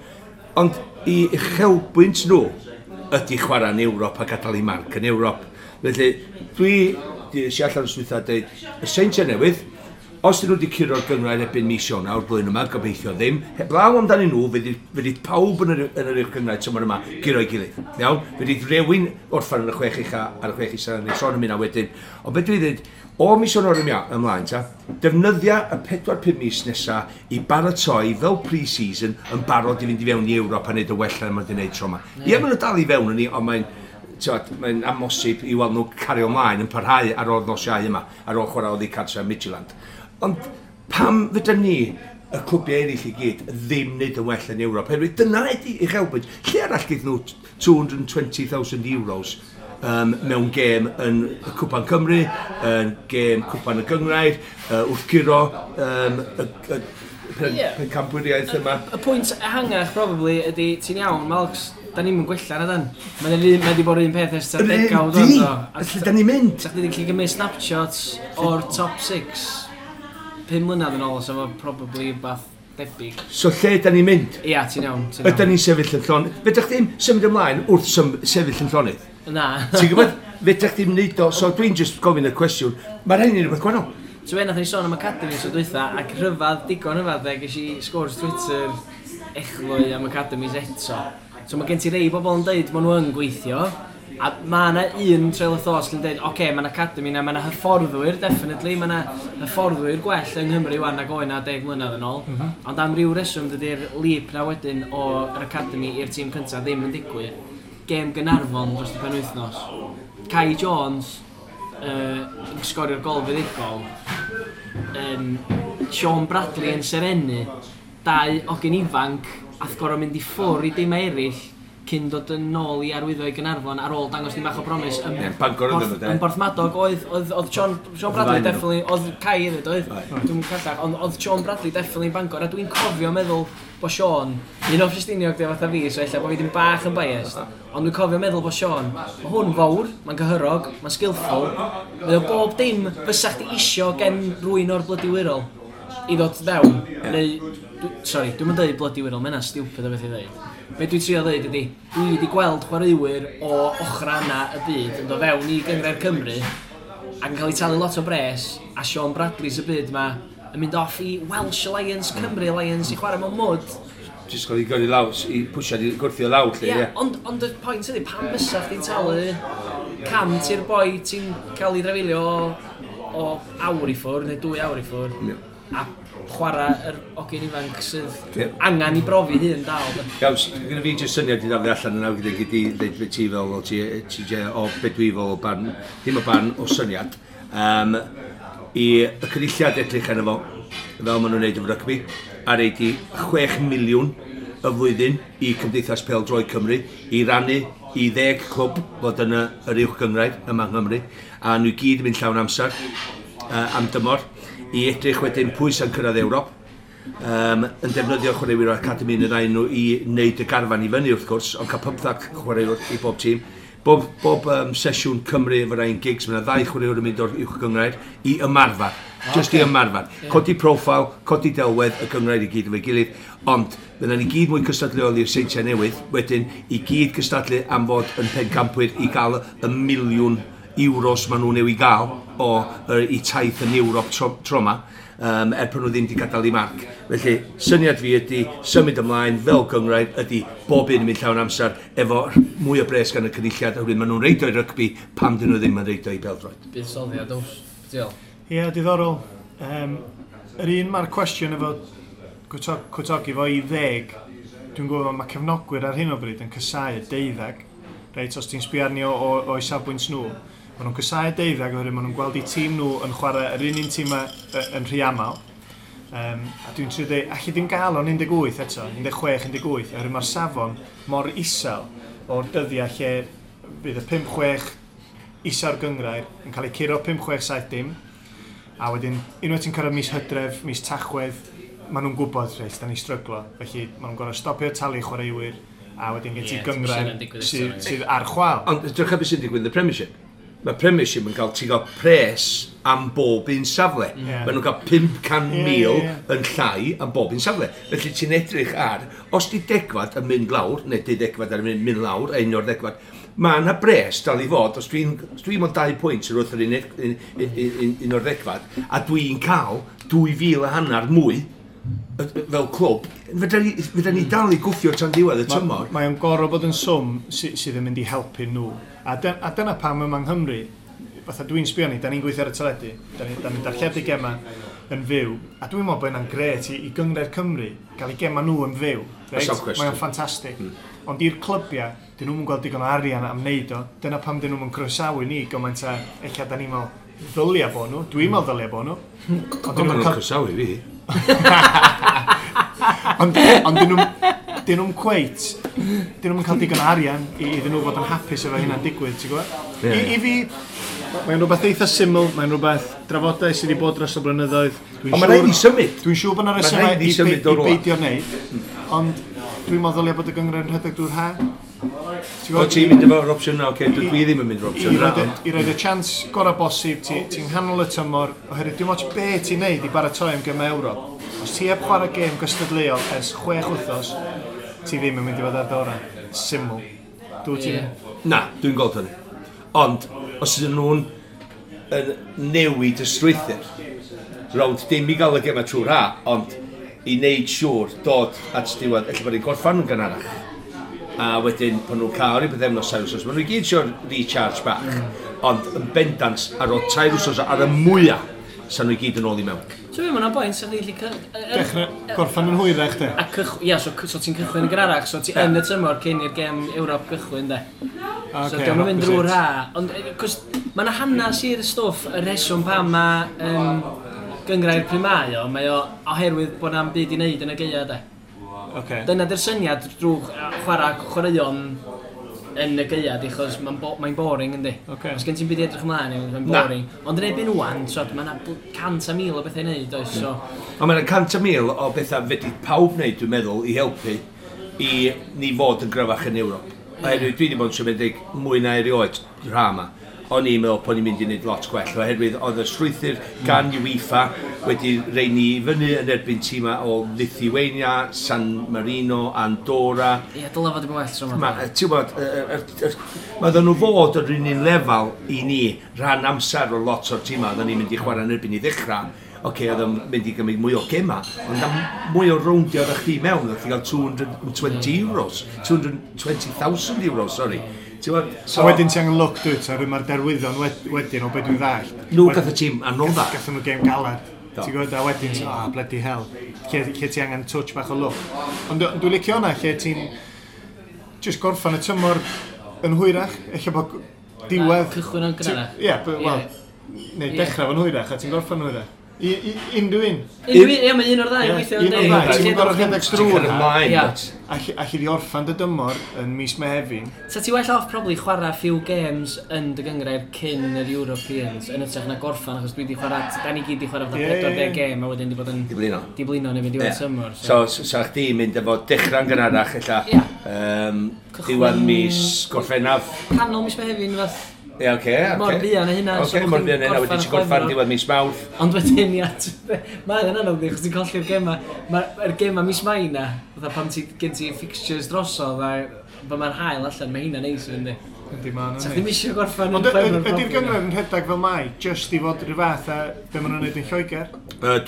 Ond i uchelbwynt nhw ydy chwarae yn Ewrop a gadael i marc yn Ewrop. Felly, dwi di eisiau allan o'r swyddfa dweud, y Seintiau Newydd, os dyn nhw wedi curo'r gynghrair erbyn mis Ionawr blwyddyn yma, gobeithio ddim, heblaw amdanyn nhw, fydd pawb yn yr uwch gynghrair tymor yma guro'i gilydd. Iawn? Fydd rhywun orffan yn y chwech ucha ar y chwech isa, neu sôn am hynna wedyn. Ond beth dwi'n dweud, o mis Ionawr ymlaen ta, defnyddia y 4-5 mis nesa i baratoi fel pre-season yn barod i fynd i fewn i Ewrop a neud y wella na maen nhw wedi gwneud tro yma. Ie, maen nhw dal i fewn yn ni, ond mae'n t'wod, mae'n amosib i weld nhw cario ymlaen yn parhau ar ôl nos Iau yma, ar ôl chwarae oddi cartre Midtjylland. Ond pam fydda ni, y clwbiau eraill i gyd, ddim wneud yn well yn Ewrop? Oherwydd dyna ydi uchelbwynt. Lle arall gyda nhw 220,000 euros mewn gêm yn y Cwpan Cymru, yn gêm Cwpan y Gynghrair, wrth guro y pencampwriaeth yma. Y pwynt ehangach, probably, ydy, ti'n iawn, Malcs, da ni'n mynd gwella na dan. Mae'n mae di bod yr un peth ers tua Yr un degawd di! o'n do. A Lle da ni'n mynd? Sa chdi 'di gallu gymryd snapshots o'r top 6 5 mlynedd yn ôl, so fo probably bath debyg. So lle da ni'n mynd? Ia, ti'n iawn, ti'n Ydy iawn. ni'n sefyll yn llonydd? Fedrwch chdi'm symud ymlaen wrth sefyll yn llonydd? Na. Ti'n gwybod? Fedrwch chdi'm neud o, so dwi'n just gofyn y cwestiwn. Mae'r hyn yn rhywbeth gwahanol. So be, nath ni sôn am Academy so dwytha, ac rhyfedd, digon rhyfedd, de, ges i sgwrs Twitter echlwy am Academies eto. So mae gen ti rei bobl yn deud maen nhw yn gweithio, a mae yna un trail of thought sy'n deud, oce, okay, mae yna academy na, mae yna hyfforddwyr, definitely, mae yna hyfforddwyr gwell yng Nghymru wan nag oedd na 10 mlynedd yn ôl. Ond am ryw reswm dydy'r leap na wedyn o'r academy i'r tîm cyntaf ddim yn digwydd. Gêm Gaernarfon dros y penwythnos. Kai Jones yn sgorio'r gol fuddugol. Sean Bradley yn serennu. Dau ogyn ifanc ath gorau mynd i ffwr i dim eraill cyn dod yn ôl i arwyddo i Gaernarfon ar ôl dangos dim bach o promise. Yn, Ie, Bangor oedden nhw, de. Yn Borthmadog oedd Sean Bradley Oedd y ddau definitely, oedd Kai hefyd oedd, Oedd. dwi'n callach, ond oedd Sean Bradley definitely yn Bangor, a dwi'n cofio meddwl bod Sean, un o Ffestiniog di fatha fi, so ella bod fi ddim bach yn biased, ond dwi'n cofio meddwl bod Sean, mae hwn fawr, mae'n gyhyrog, mae'n skillful, mae o bob dim fysa chdi isio gen rywun o'r Blydi Wirral i ddod fewn, neu, sorry, dwi'n mynd dweud Blydi Wirral, mae hynna'n stupid o beth i dweud. Be dwi'n trio dweud ydi, dwi wedi gweld chwaraewyr o ochra yna y byd yn dod fewn i Gynghrair Cymru ac yn cael ei talu lot o bres, a Sean Bradley's y byd ma yn mynd off i Welsh Alliance, Cymru Alliance i chwarae mewn mwd. Jyst cael ei gyrru lawr, i pwsiad i gwrthio lawr, lle, Ie, ie. ond y pwynt ydi, pam fysa chdi'n talu cam ti'r boi ti'n cael ei drafeilio o awr i ffwrdd, neu 2 awr i ffwrdd, a chwarae yr ogyn ifanc sydd angen i brofi hun dal, de. Iawn, gyda fi jyst syniad i ddaflu allan yna gyda gyd i ddeud beth ti fel, o ti, TJ, o beth dwi fel o barn, ddim o barn, o syniad. I y cynulliad edrych arno fo, fel maen nhw'n neud efo rygbi, a reid i 6 miliwn y flwyddyn i Cymdeithas Pêl-droed Cymru i rannu i 10 clwb fod yn yr uwch gynghrair yma yng Nghymru, a nhw i gyd yn mynd llawn amser am dymor, i edrych wedyn pwy sy'n cyrraedd Ewrop, yn defnyddio chwaraewyr o'r academi yn y ddau nhw i wneud y garfan i fyny wrth gwrs, ond cael 15 chwaraewr i bob tîm. Bob sesiwn Cymru efo Ryan Giggs, mae yna ddau chwaraewr yn mynd o'r uwch gynghrair i ymarfer. Just i ymarfer. Codi profil, codi delwedd y gynghrair i gyd efo'i gilydd, ond fydda ni gyd mwy cystadleuol i'r Seintiau Newydd, wedyn i gyd cystadlu am fod yn pencampwyr i gael y miliwn euros maen nhw'n i'w gael o i taith yn Ewrop tro ma, er pan nhw ddim wedi gadael i marc. Felly, syniad fi ydy symud ymlaen fel gynghrair ydy bob un yn mynd llawn amser efo mwy o bres gan y cynulliad, oherwydd maen nhw'n reid o i rygbi pam dyn nhw ddim yn reid o i bêl-droed. Buddsoddiad, oes. Diolch. Ie, diddorol. Yr un mae'r cwestiwn efo cwtogi fo i 10, dwi'n gwybod mae cefnogwyr ar hyn o bryd yn casáu 12. Reit, os ti'n sbio arni o'i safbwynt nhw, maen nhw'n casáu 12 oherwydd maen nhw'n gweld eu tîm nhw yn chwarae yr un un tîm yn rhy aml. A dwi'n trio dweud, allu dim gael o'n 18 eto, 16, 18, oherwydd mae'r safon mor isel o'r dyddiau lle fydd y 5-6 isa'r gyngrair yn cael ei curo 5, 6, 7 dim. A wedyn, unwaith ti'n cyrraedd mis Hydref, mis Tachwedd, maen nhw'n gwybod, reit, da ni stryglo. Felly, maen nhw'n gorfod stopio talu chwaraewyr, a wedyn gen ti gyngrair sydd ar chwal. Ond drych beth sy'n digwydd yn y Premiership. Mae Premiership yn cael, ti'n cael pres am bob un safle. Maen nhw'n cael 500,000 yn llai am bob un safle. Felly ti'n edrych ar, os di degfad yn mynd lawr, neu deuddegfad yn mynd lawr, a un o'r degfad, mae yna bres dal i fod, os dwi'n mond 2 pwynt yr wrth yr un o'r ddegfad, a dwi'n cael 2,500 mwy fel clwb, fedra ni dal i gwffio tan diwedd y tymor. Mae o'n gorfod bod yn swm sydd yn mynd i helpu nhw. A dyna pam yma yng Nghymru, fatha dwi'n sbio ni, da ni'n gweithio ar y teledu, da ni darlledu gema yn fyw, a dwi'n meddwl bod hynna'n grêt i Gynghrair Cymru gael eu gema nhw yn fyw. Reit? Question. Mae o'n ffantastig. Ond i'r clybiau, dyn nhw'n gweld digon o arian am wneud o. Dyna pam dyn nhw'n croesawu ni gymaint a ella da ni'n meddwl ddylia bo nhw. Dwi'n meddwl ddylia bo nhw. Ond dyn Ond maen nhw'n nhw'n cael croesawu fi. Ond dyn nhw'n cweit, dyn nhw'n cael digon o arian iddyn nhw fod yn hapus efo hynna'n digwydd, ti'n gwybod? Ie. I fi, mae'n rhywbeth eitha syml, mae'n rhywbeth drafodaeth sydd wedi bod dros y blynyddoedd. Ond mae'n rhaid i symud. Dwi'n siŵr bod yna Mae'n resymau rhaid i symud i o rwla. beidio wneud, ond dwi'n meddwl ddylia bod y gynghrair yn rhedeg drwy'r ha. Ti'n O gwbod? ti'n mynd efo'r opsiwn na, oce, dwi ddim yn mynd efo'r I opsiwn na. i roed y chance gorau bosib, ti'n nghanol y tymor, oherwydd dim ots be ti'n neud i baratoi am gemau Ewrop. Os ti heb chwarae gêm gystadleuol ers 6 wythnos, ti ddim yn mynd i fod ar dy orau. Syml. Dwi ti'n... Ie. Na, dwi'n gweld hynny. Ond, os ydyn nhw'n yn newid y strwythur, rownd dim i gael y gema trwy'r ha, ond i wneud siŵr dod at diwedd, ella bod ni'n gorffan yn gynharach. A wedyn, pan nhw'n cael rhyw bythefnos, 3 wsos, maen nhw i gyd eisiau recharge bach. Ond yn bendant, ar ôl 3 wsos ar y mwyaf, sa'n nhw i gyd yn ôl i mewn. So fi, mae'n bwynt, sa'ch chi'n gallu Dechrau gorffan yn hwyrach, de. A ia, so ti'n cychwyn yn gynharach, so ti yn y tymor cyn i'r gem Ewrop gychwyn, de. So Ocê, diolch yn mynd opposite. drwy'r ha. Ond, cos, mae yna hanes i'r stwff, y rheswm pam mae gyngrair pryd mae o oherwydd bod na'm byd i wneud yn y gaea, de. Ocê. Dyna di'r syniad drwy chwarae chwaraeon yn y gaea, di, achos mae'n mae boring, yndi. Ocê. Os gen ti'n byd i edrych ymlaen, mae'n Na. boring. Ond yn erbyn ŵan, so, mae yna 100,000 o bethau i wneud, oes, so... Ond mae'n 100,000 o bethau fedri pawb wneud, dwi'n meddwl, i helpu i ni fod yn gryfach yn Ewrop. Oherwydd dwi wedi bod yn siomedig mwy na erioed rha yma. O'n i'n meddwl bod ni'n mynd i wneud lot gwell, oherwydd oedd y strwythur gan UEFA wedi rei ni fyny yn erbyn tîmau o Lithuania, San Marino, Andorra. Ie, dylai fod yn well tro yma. Ma, ti'n gwbod, mae oedden nhw fod yr un un lefel i ni rhan amser o lot o'r tîmau oedden ni'n mynd i chwarae yn erbyn i ddechrau. Oce, oedd o'n mynd i gymryd mwy o gema, ond am mwy o rowndio oeddech chdi mewn, oeddech chdi gael €220, €220,000, sorry. Ti'n gwbod, So wedyn ti angen luck, dwyt, oherwydd mae'r derwyddon wedyn o beth dwi'n ddallt. Nhw gath y tîm anodda. Gathon nhw gêm galad. Do. Ti'n gwybod, a wedyn, ti'n, ah, bloody hell. Lle ti angen touch bach o luck. Ond dwi'n licio hwnna, lle ti'n just gorffan y tymor yn hwyrach, ella bod diwedd... Cychwyn yn gynharach. Ie, wel, neu dechrau fo'n hwyrach, a ti'n gorffan hwyrach. Unrhyw un. Unrhyw un, ie, mae un o'r ddau Ie, yn gweithio. un o'r yndi? ddau. Ti'n gorfod rhedeg Ti'n drwy'r cael ha. ymlaen, Ie. Alli di orffan dy dymor yn mis Mehefin. Sa ti well off probably chwarae few games yn dy gyngrair cyn yr Europeans yn hytrach na gorffan, achos dwi di chwarae, da ni gyd di chwarae fatha Ie, ie, 40 gêm a wedyn di bod yn Di blino. di blino neu fynd i diwedd Ie. tymor. So, sa chdi mynd efo dechrau'n gynharach, ella, Ie. Diwedd mis Gorffennaf. Canol mis Mehefin fath. Ie, oce, oce. Mor buan â hynna, so Oce, bo' mor chdi'n buan â hynna, wedyn gorffan ti'n gorffan Chwefror. diwedd mis Mawrth. Ond wedyn, ia, mae'n anodd di, achos ti'n colli'r gema. Mae'r gema mis Mai na, fatha pan ti, gen ti fixtures drosodd, a pan mae'r haul allan, mae hynna'n neis yn di. Yndi, ma'n Sa chdi'm isio gorffan Ond yn Chwefror ydy'r probably, gynghrair yn rhedeg fel mai, just i fod rhyw fath a be maen nhw'n neud yn Lloegr?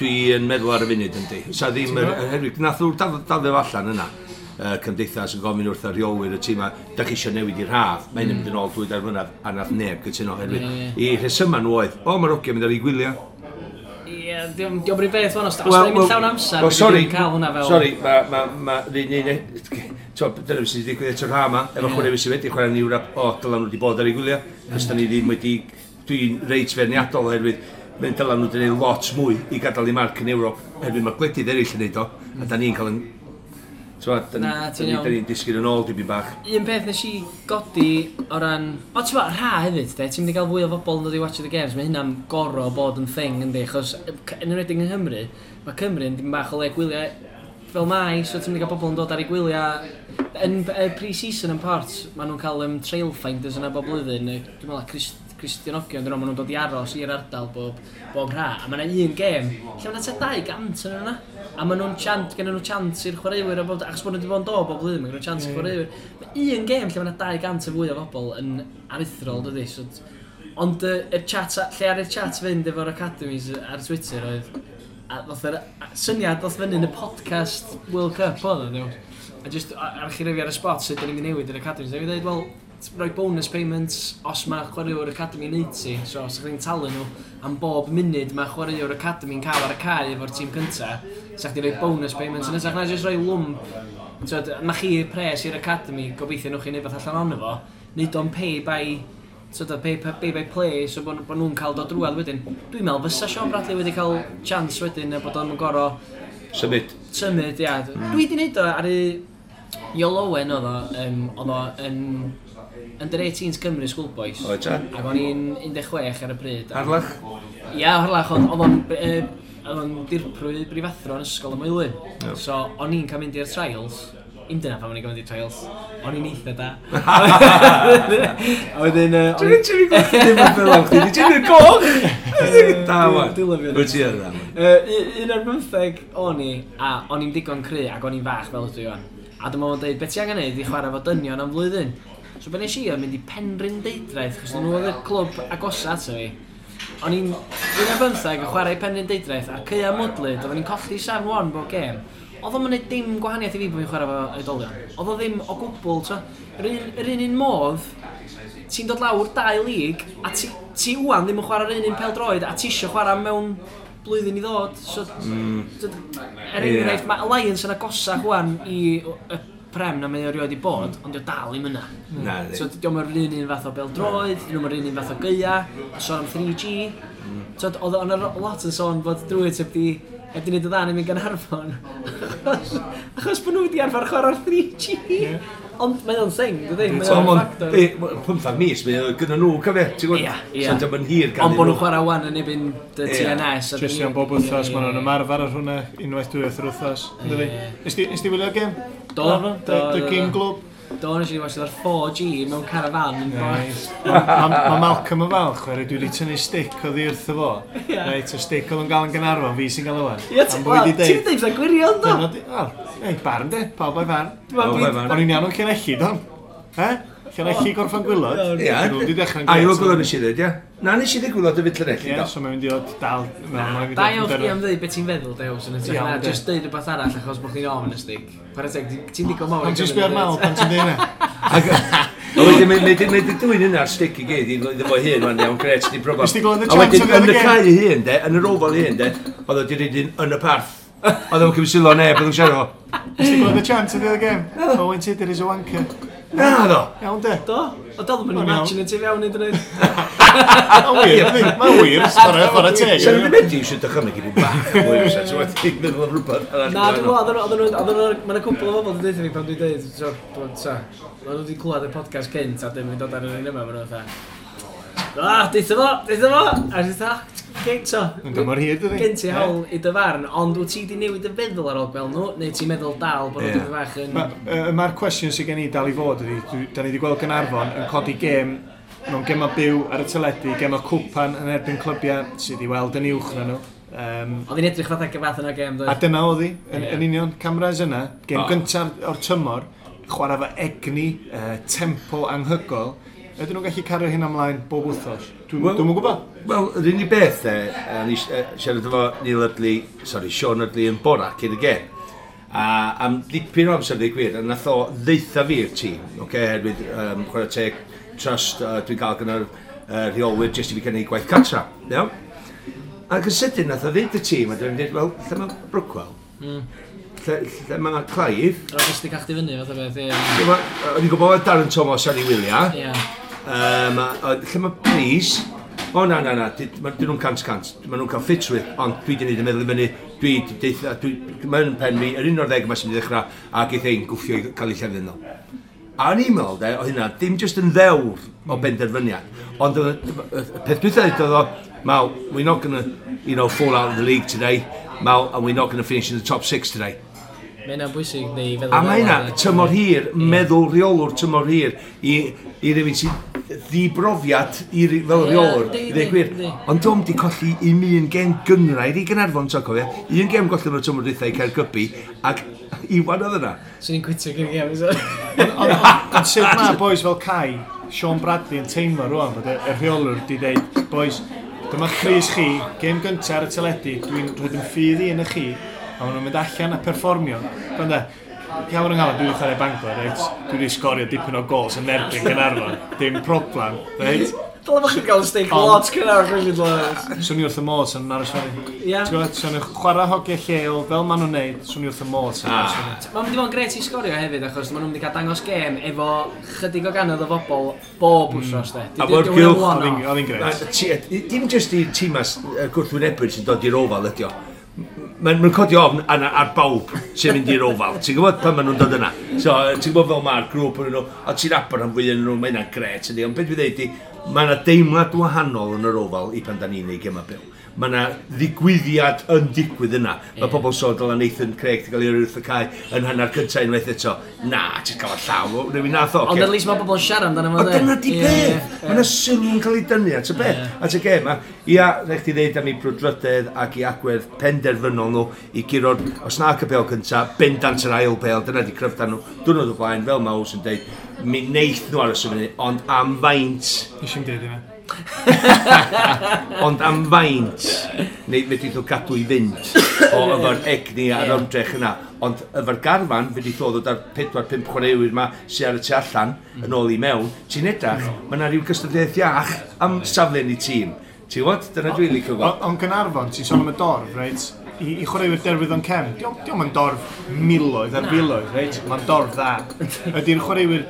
Dwi yn meddwl ar y funud yndi. Sa ddim, Ti'n gwbod? oherwydd, nath nhw daflu allan yna. Cymdeithas yn gofyn wrth y rheolwyr y tîm da chi eisiau newid i'r haf, mae'n mynd yn ôl 2-3 mlynedd, a nath neb gytuno oherwydd. Ie, I rhesyma nhw oedd, o, mae'r hogiau mynd ar ei gwyliau. Ie, diolch yn beth fan, os os da ni'n mynd llawn amser, well, sorry, dwi'n cael hwnna fel... Sorry, ma, un, un, dyna beth sydd wedi digwydd eto'r ha yma, efo chwaraewyr sydd wedi chwarae yn Ewrop, o, dyla nhw wedi bod ar ei gwyliau, cos da ni ddim wedi, dwi'n reit feirniadol oherwydd Mae'n dyla nhw wedi gwneud lot mwy i gadael i marc yn Ewrop, herwydd mae gwledydd eraill yn neud o, a da ni'n cael yn... T'mod, Na, ti'n iawn. Da ni'n disgyn yn ôl dipyn bach. Un peth nes i godi o ran... O, ti'n bod, rha hefyd, de, ti'n mynd i gael fwy o bobl yn dod i watch the games, mae hynna'n goro bod yn thing, yndi, achos yn enwedig yng Nghymru, mae Cymru yn dim bach o le gwyliau fel mai, so ti'n mynd i gael bobl yn dod ar eu gwyliau. Yn pre-season yn Port, maen nhw'n cael trail finders yna bob blwyddyn, dwi'n meddwl Cristionogion, dyn nhw, maen nhw'n dod i aros i'r ardal bob rha. A mae yna un gêm, lle mae yna tua 200 yn yna. A maen nhw'n chant, gen nhw chant i'r chwaraewyr, a bob, achos bod nhw wedi bod yn dod bob blwyddyn, mae gen nhw chant i'r chwaraewyr. Mae un gêm lle mae yna 200 o fwy o bobl yn aruthrol, dydy. So, ond y chat, lle ar y chat fynd efo'r academies ar Twitter oedd, a ddoth yr syniad ddoth fyny yn y podcast World Cup oedd o, ddiw. A just archifio ar y spot sut da ni'n mynd i newid yr academies. A fi dweud, wel, rhoi bonus payments os mae chwaraewr academy yn neud ti. So, os ydych chi'n talu nhw am bob munud mae chwaraewr academy yn cael ar y cae efo'r tîm cynta, sa chdi rhoi bonus payments yn hytrach na jyst rhoi lwmp. T'wod, ma chi pres i'r academy, gobeithio nhw chi'n neud beth allan ono fo, neud o'n pay by sort of pay by play, so bod nhw'n cael dod drwadd wedyn. Dwi'n meddwl fysa Sean Bradley wedi cael chance wedyn a bod o'n gorau Symud. Symud, ia. Dwi wedi neud o ar y Iolo Owen oedd o, oedd o yn Under 18s Cymru Schoolboys. Oedd ta? Ac o'n i'n 16 ar y pryd. Harlech? Ia, Harlech, oedd o'n dirprwy brifathro yn ysgol y Moelwyn. Ie. So, o'n i'n cael mynd i'r trials. Im dyna pam o'n i'n cael mynd i'r trials. O'n i'n eitha da. A wedyn... Dwi'n ti'n gweld ddim yn fel am chdi, ti'n mynd goch! Da, wan. Dwi'n lyfio Wyt ti yn dda, wan. 11 o'n i, a o'n i'n digon cry ac o'n i'n fach fel ydw i wan. A dyma fo'n dweud, beth ti angen neud i chwarae fo dynion am flwyddyn? So be nes i oedd mynd i Penrhyn Deudraeth, chos nhw oedd y clwb agosa ato fi. O'n i'n 11 yn chwarae i Penrhyn Deudraeth, a'r caea mwdlyd, oedden ni'n colli 7-1 bob gêm. Oedd o'm yn neud dim gwahaniaeth i fi bod fi'n chwarae fo oedolion. Oedd o ddim o gwbl, t'o. Yr un modd, ti'n dod lawr dau lig, a ti wan ddim yn chwarae'r un un pêl-droed, a ti isio chwarae mewn blwyddyn i ddod. So, er enghraifft, mae Alliance yn agosach wan i y Prem na mae o erioed i bod, ond dio dal ddim yna. Na, So, diolch yr un fath o bêl-droed, dio'm yr un fath o gaea, sôn am 3G. So, oedd o'n lot yn sôn bod Druids heb di wneud y dda yn mynd Gaernarfon. Achos bod nhw wedi arfer chwarae'r 3G. Ond mae o'n thing, dydy? Mae So, o'n mon, factor. 15 mis, mae o gyda nhw, cofio, ti'n gwybod? Ie, ie. So, dio'm yn hir gan Ond bod nhw'n chwarae wan yn ebyn y TNS. A Jyst iawn bob wythnos, maen nhw'n ymarfer ar hwnna unwaith dwywaith yr wythnos. Yndydi? Ie. Nes ti wylio'r gêm? Do, do, The do, Game do. Globe? Do, nes i watch ar 4G mewn caravan yn Nice. Ma Malcolm yn falch, oherwydd dwi wedi tynnu stick oddi wrtho fo. Ie. Reit, y stick oedd yn gael yn Gaernarfon, fi sy'n gael o wan. Ie, Am bod wedi ti'n deud. deud fatha gwirion, do? Dyna di- Wel, ei, barn de, pawb o'i farn. Pawb o'i farn. O'n i'n iawn o'n Llanelli, don? He? Llanelli gorffan gwylod? Ie. Nhw wedi dechrau'n A grêt. i weld nes i ddweud, ie? Na, nes i ddweud gwylod y fyd Llanelli, Ie, do. so mae'n mynd i ddod dal... mae'n mynd i Da ddod iawn yn chdi derfyn. am dweud beth ti'n feddwl, Dews, yn hytrach Iawn, na de. just deud rhywbeth arall achos bod chdi'n ofn y stick. Chwarae teg, ti'n digon mawr. i Pan ti'n gymryd sbio ar y Mal, bit. pan ti'n dweud hynna? A wedyn, mae di dwyn yna'r stick i gyd, iddo fo hun, wan, iawn, gret, di broblem. Nes ti glywed y A chant wedyn, o ddiwedd yn y y gêm? cae ei hun, de, yn yr ofal ei hun, de, oedd o di reid un yn y parth. Oedd o'n cymryd sylw o neb, oedd o'n siarad o. Nes ti glywed y chant o ddiwedd y gêm? Owen Tudur is a wanker. Na, ddo. Iawn de. Do, o dal ddim yn O'n iawn. imagine ti fewn iddyn nhw. Mae'n wir, yndi? Mae'n wir, chwarae teg. Sa'n rhaid wedi eisiau dychymyg i bod bach mwy o ti'n wedi meddwl am rhywbeth arall. Na, dwi'n meddwl, oedden nhw, mae'n cwpl o bobl wedi dweud fi pan dwi'n dweud, so, dwi'n so, maen nhw wedi clywed y podcast cynt a dim yn dod ar yr un yma, maen nhw fatha, ah, deutha fo, deutha fo, a dwi'n fatha, gen, so, Yn dymor hir, dydi? gen ti hawl i dy farn, ond wyt ti wedi newid y feddwl ar ôl gweld nhw, neu ti'n meddwl dal bod nhw Ie. dipyn bach yn... Mae'r cwestiwn sydd gen i dal i fod ydy, da ni wedi gweld Gaernarfon yn codi gêm mewn gema byw ar y teledu, gema cwpan yn erbyn clybiau sydd i weld yn uwch na nhw. Oedd hi'n edrych fatha fath yna gêm, A doedd? dyna oedd hi, yn, Ie. yn union, cameras yna, gêm O. gyntaf o'r tymor, chwarae fo egni, tempo anhygoel. Ydyn nhw'n gallu cario hyn ymlaen bob wythnos? Dwi'n Wel- dwi'm yn gwybod. Wel, yr unig beth, de, ni siarad efo Neil Ydley, sorry, Sean Ydley yn bora cyn y gêm. A am dipyn o amser, dweud gwir, a nath o ddeutha fi i'r tîm, oce, okay, herwydd chwarae teg, trust dwi'n gael gyda'r rheolwyr jyst i fi cynnig gwaith cartra, iawn? Ac yn sydyn nath o ddeud y tîm, a dwi'n dweud, wel, lle mae Brookwell? Lle mae Clive? Roedd jyst i cael chdi fyny, fath o beth, ie. Lle ma, o'n i'n gwybod Darren Thomas ar ei wyliau. Ie. Lle mae Breeze? O na, na, na, dyn nhw'n 100%, maen nhw'n cael ffitrwydd, ond dwi wedi gwneud y meddwl i fyny, dwi wedi deitha, mae'n pen fi, yr 11 yma sy'n mynd i ddechrau, a geith ein gwffio i cael ei llefydd nhw. A o'n i'n meddwl, de, o hynna, dim jyst yn ddewr o benderfyniad, ond y peth dwytha oedd o, Mal, we're not going to, fall out of the league today, Mal, and we're not going to finish in the top 6 today. Mae hynna'n bwysig neu feddwl. A mae hynna, tymor hir, meddwl rheolwr tymor hir, i rywun sy'n ddibrofiad i, fel rheolwr, i ddweud gwir. Ond dom di colli un un gêm gynghrair i Gaernarfon, ti'n cofio? Un gêm golli yn y tymor dwytha i Caergybi, ac Iwan oedd yna. Swn i'n quitio gyn gêm, Ond sut mae boys fel Kai, Sean Bradley yn teimlo rwan bod y rheolwr di dweud, boys, dyma crys chi, gêm gyntaf ar y teledu, dwi'n rhoi yn ffydd i yn y chi, a maen nhw'n mynd allan a perfformio. Gwranda, iawn yng nghalon, dwi wedi chwarae Bangor, reit? Dwi wedi sgorio dipyn o gols yn erbyn Gaernarfon. Dim problem, reit? Dyle bod chi'n cael steak lot cynnar o'ch chi'n. Swn i wrth y modd sy'n aros fyny. Ie. Ti'n gwybod, swn i'n chwarae hogiau lleol, fel maen nhw'n neud, swn i wrth y modd sy'n aros fyny. Mae'n mynd i fod yn gret i sgorio hefyd, achos maen nhw'n mynd i cael dangos gêm efo chydig o gannoedd o bobl bob wsos, de. A bo'r gylch. Oedd hi'n gret. Dim jyst i tîmas gwrthwynebwyr sy'n dod i'r ofal ydi o. Mae'n codi ofn ar bawb sy'n mynd i'r ofal. Ti'n gwybod pan maen nhw'n dod yna. So, ti'n gwybod fel mae'r grŵp yn nhw, a ti'n abod am fwy yn nhw, mae hynna'n gret yndi. Ond beth dwi'n dweud i, mae yna deimlad wahanol yn yr ofal i pan da ni'n neud gema byw. Mae yna ddigwyddiad yn digwydd yna. Mae pobl sôn dyla Nathan Craig di gael ei wrth y cae yn hanner cyntaf unwaith eto. Na, ti'n cael y llaw, rhywun nath o. Ond at least mae pobl yn siarad amdano fo. Ond dyna di peth. Mae yna sylw'n cael ei dynnu at y beth. At y gêm. Ia, rhaid chdi ddeud am ei brwdfrydedd ac i agwedd penderfynol nhw i guro'r, os na y bêl cyntaf, bendant yr ail bêl, dyna di cryfder nhw. Diwrnod o blaen, fel mae Ows yn deud, mi neith nhw aros y fyny, ond am faint... Nes i'm deud hynna. Ond am faint, neu fedrith o gadw i fynd o efo'r egni a'r ymdrech yna. Ond efo'r garfan, fedrith o ddod ar 4-5 chwaraewyr yma sydd ar y tu allan yn ôl i mewn, ti'n edrach, mae yna rhyw gystadleuaeth iach am safle yn ei tîm. Ti'n gwybod? Dyna dwi'n licio gweld. Ond Gaernarfon, ti'n sôn am y dorf, reit? I chwaraewyr Derwyddon Cefn, dio'm yn dorf miloedd ar filoedd, reit? Mae'n dorf dda. Ydy'r chwaraewyr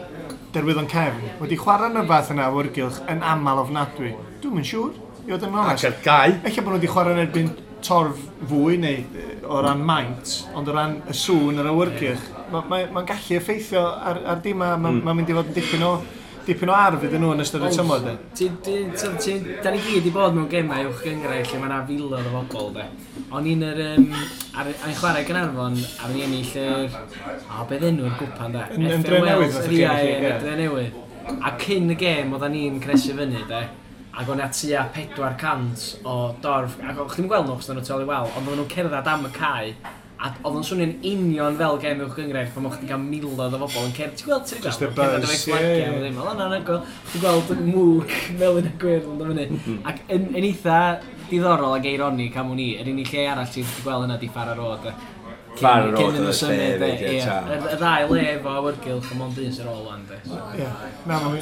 Derwyddon Cefn wedi chwarae yn y fath yna awyrgylch yn aml ofnadwy. Dwi'm yn siŵr, i fod yn onest. Ac ar gau. Ella bod nhw wedi chwarae yn erbyn torf fwy neu o ran maint, ond o ran y sŵn yr awyrgylch, mae'n gallu effeithio ar dim a mae'n mynd i fod yn dipyn o arf iddyn nhw yn ystod y tymor, de. Da ni gyd i bod mewn gemau uwch gynghrair lle mae yna filoedd o bobl, de. O'n i'n yr, ar ein chwarae Gaernarfon, a o'n i'n ennill yr, o, beth enw'r gwpan, de? Yn Dre Newydd, fath o gêm. Ie, yn Dre Newydd. A cyn y gêm, oedden ni'n cresu fyny, de. Ac o'n tua 400 o dorf, ac o'ch chi'n gweld nhw, achos oedden nhw tu ôl i wal, ond oedden nhw'n cerdded am y cae, a oedd o'n swnio'n union fel gêm uwch gynghrair pan o'ch chi'n cael miloedd o bobl yn cerdded. Ti'n gweld, ti'n gweld? Cerdded efo'i flagiau, ddim. Oedd o'n anhygoel. Ti'n gweld mwg melyn a gwyrdd yn dod fyny. Ac yn eitha diddorol ac eironig am wn i, yr unig lle arall ti'n gweld yna di Farrer Road. Farrer Road oedd y lle hefyd, ie. Y ddau le efo awyrgylch a mond un sy'n ôl wan, de.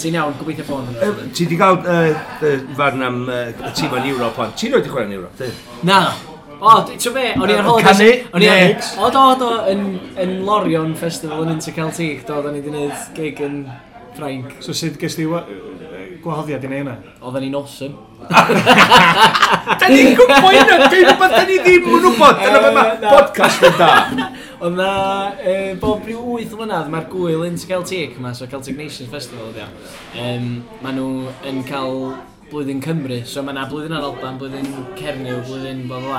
Ti'n iawn, gobeithio bod yn. Ti di gael farn am y tîm yn Ewrop, ond ti'n rhoi di chwarae yn Ewrop, di? Na. O, ti'n be, o'n i ar holidays... Canu? Neu? O, do, yn Lorient Festival yn Interceltique, do, o'n i wedi gwneud gig yn Ffrainc. So sut ges di gwahoddiad i neud hynna? Oedden ni'n awesome. Da ni'n gwybod hynna, dwi'n rhywbeth da ni ddim yn wybod, dyna be mae podcast yn da. Oedd na, bob rhyw 8 mlynedd, mae'r gwyl Interceltique yma, so Celtic Nations Festival ydi o. Maen nhw yn cael blwyddyn Cymru, so mae yna blwyddyn ar Alban, blwyddyn Cernyw, blwyddyn bla bla.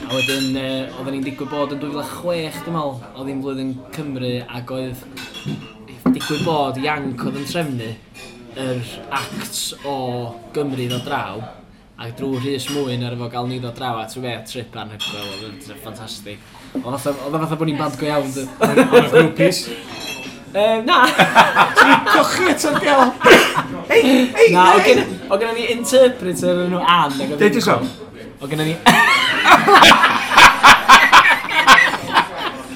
A wedyn, oedden ni'n digwydd bod yn 2006, dwi'n meddwl, oedd hi'n blwyddyn Cymru, ac oedd digwydd bod Ianc oedd yn trefnu yr acts o Gymru ddod draw, ac drwy Rhys Mwyn ar efo gael ni ddod draw, a trwy fe trip anhygoel, oedd yn ffantastig. Oedd fatha bod ni'n band go iawn. Oedd groupies? Na! Ti'n cochi eto'r gel! Hei, Na, oedd gennym ni interpreter yn nhw Ann. Deud so. Oedd gennym ni...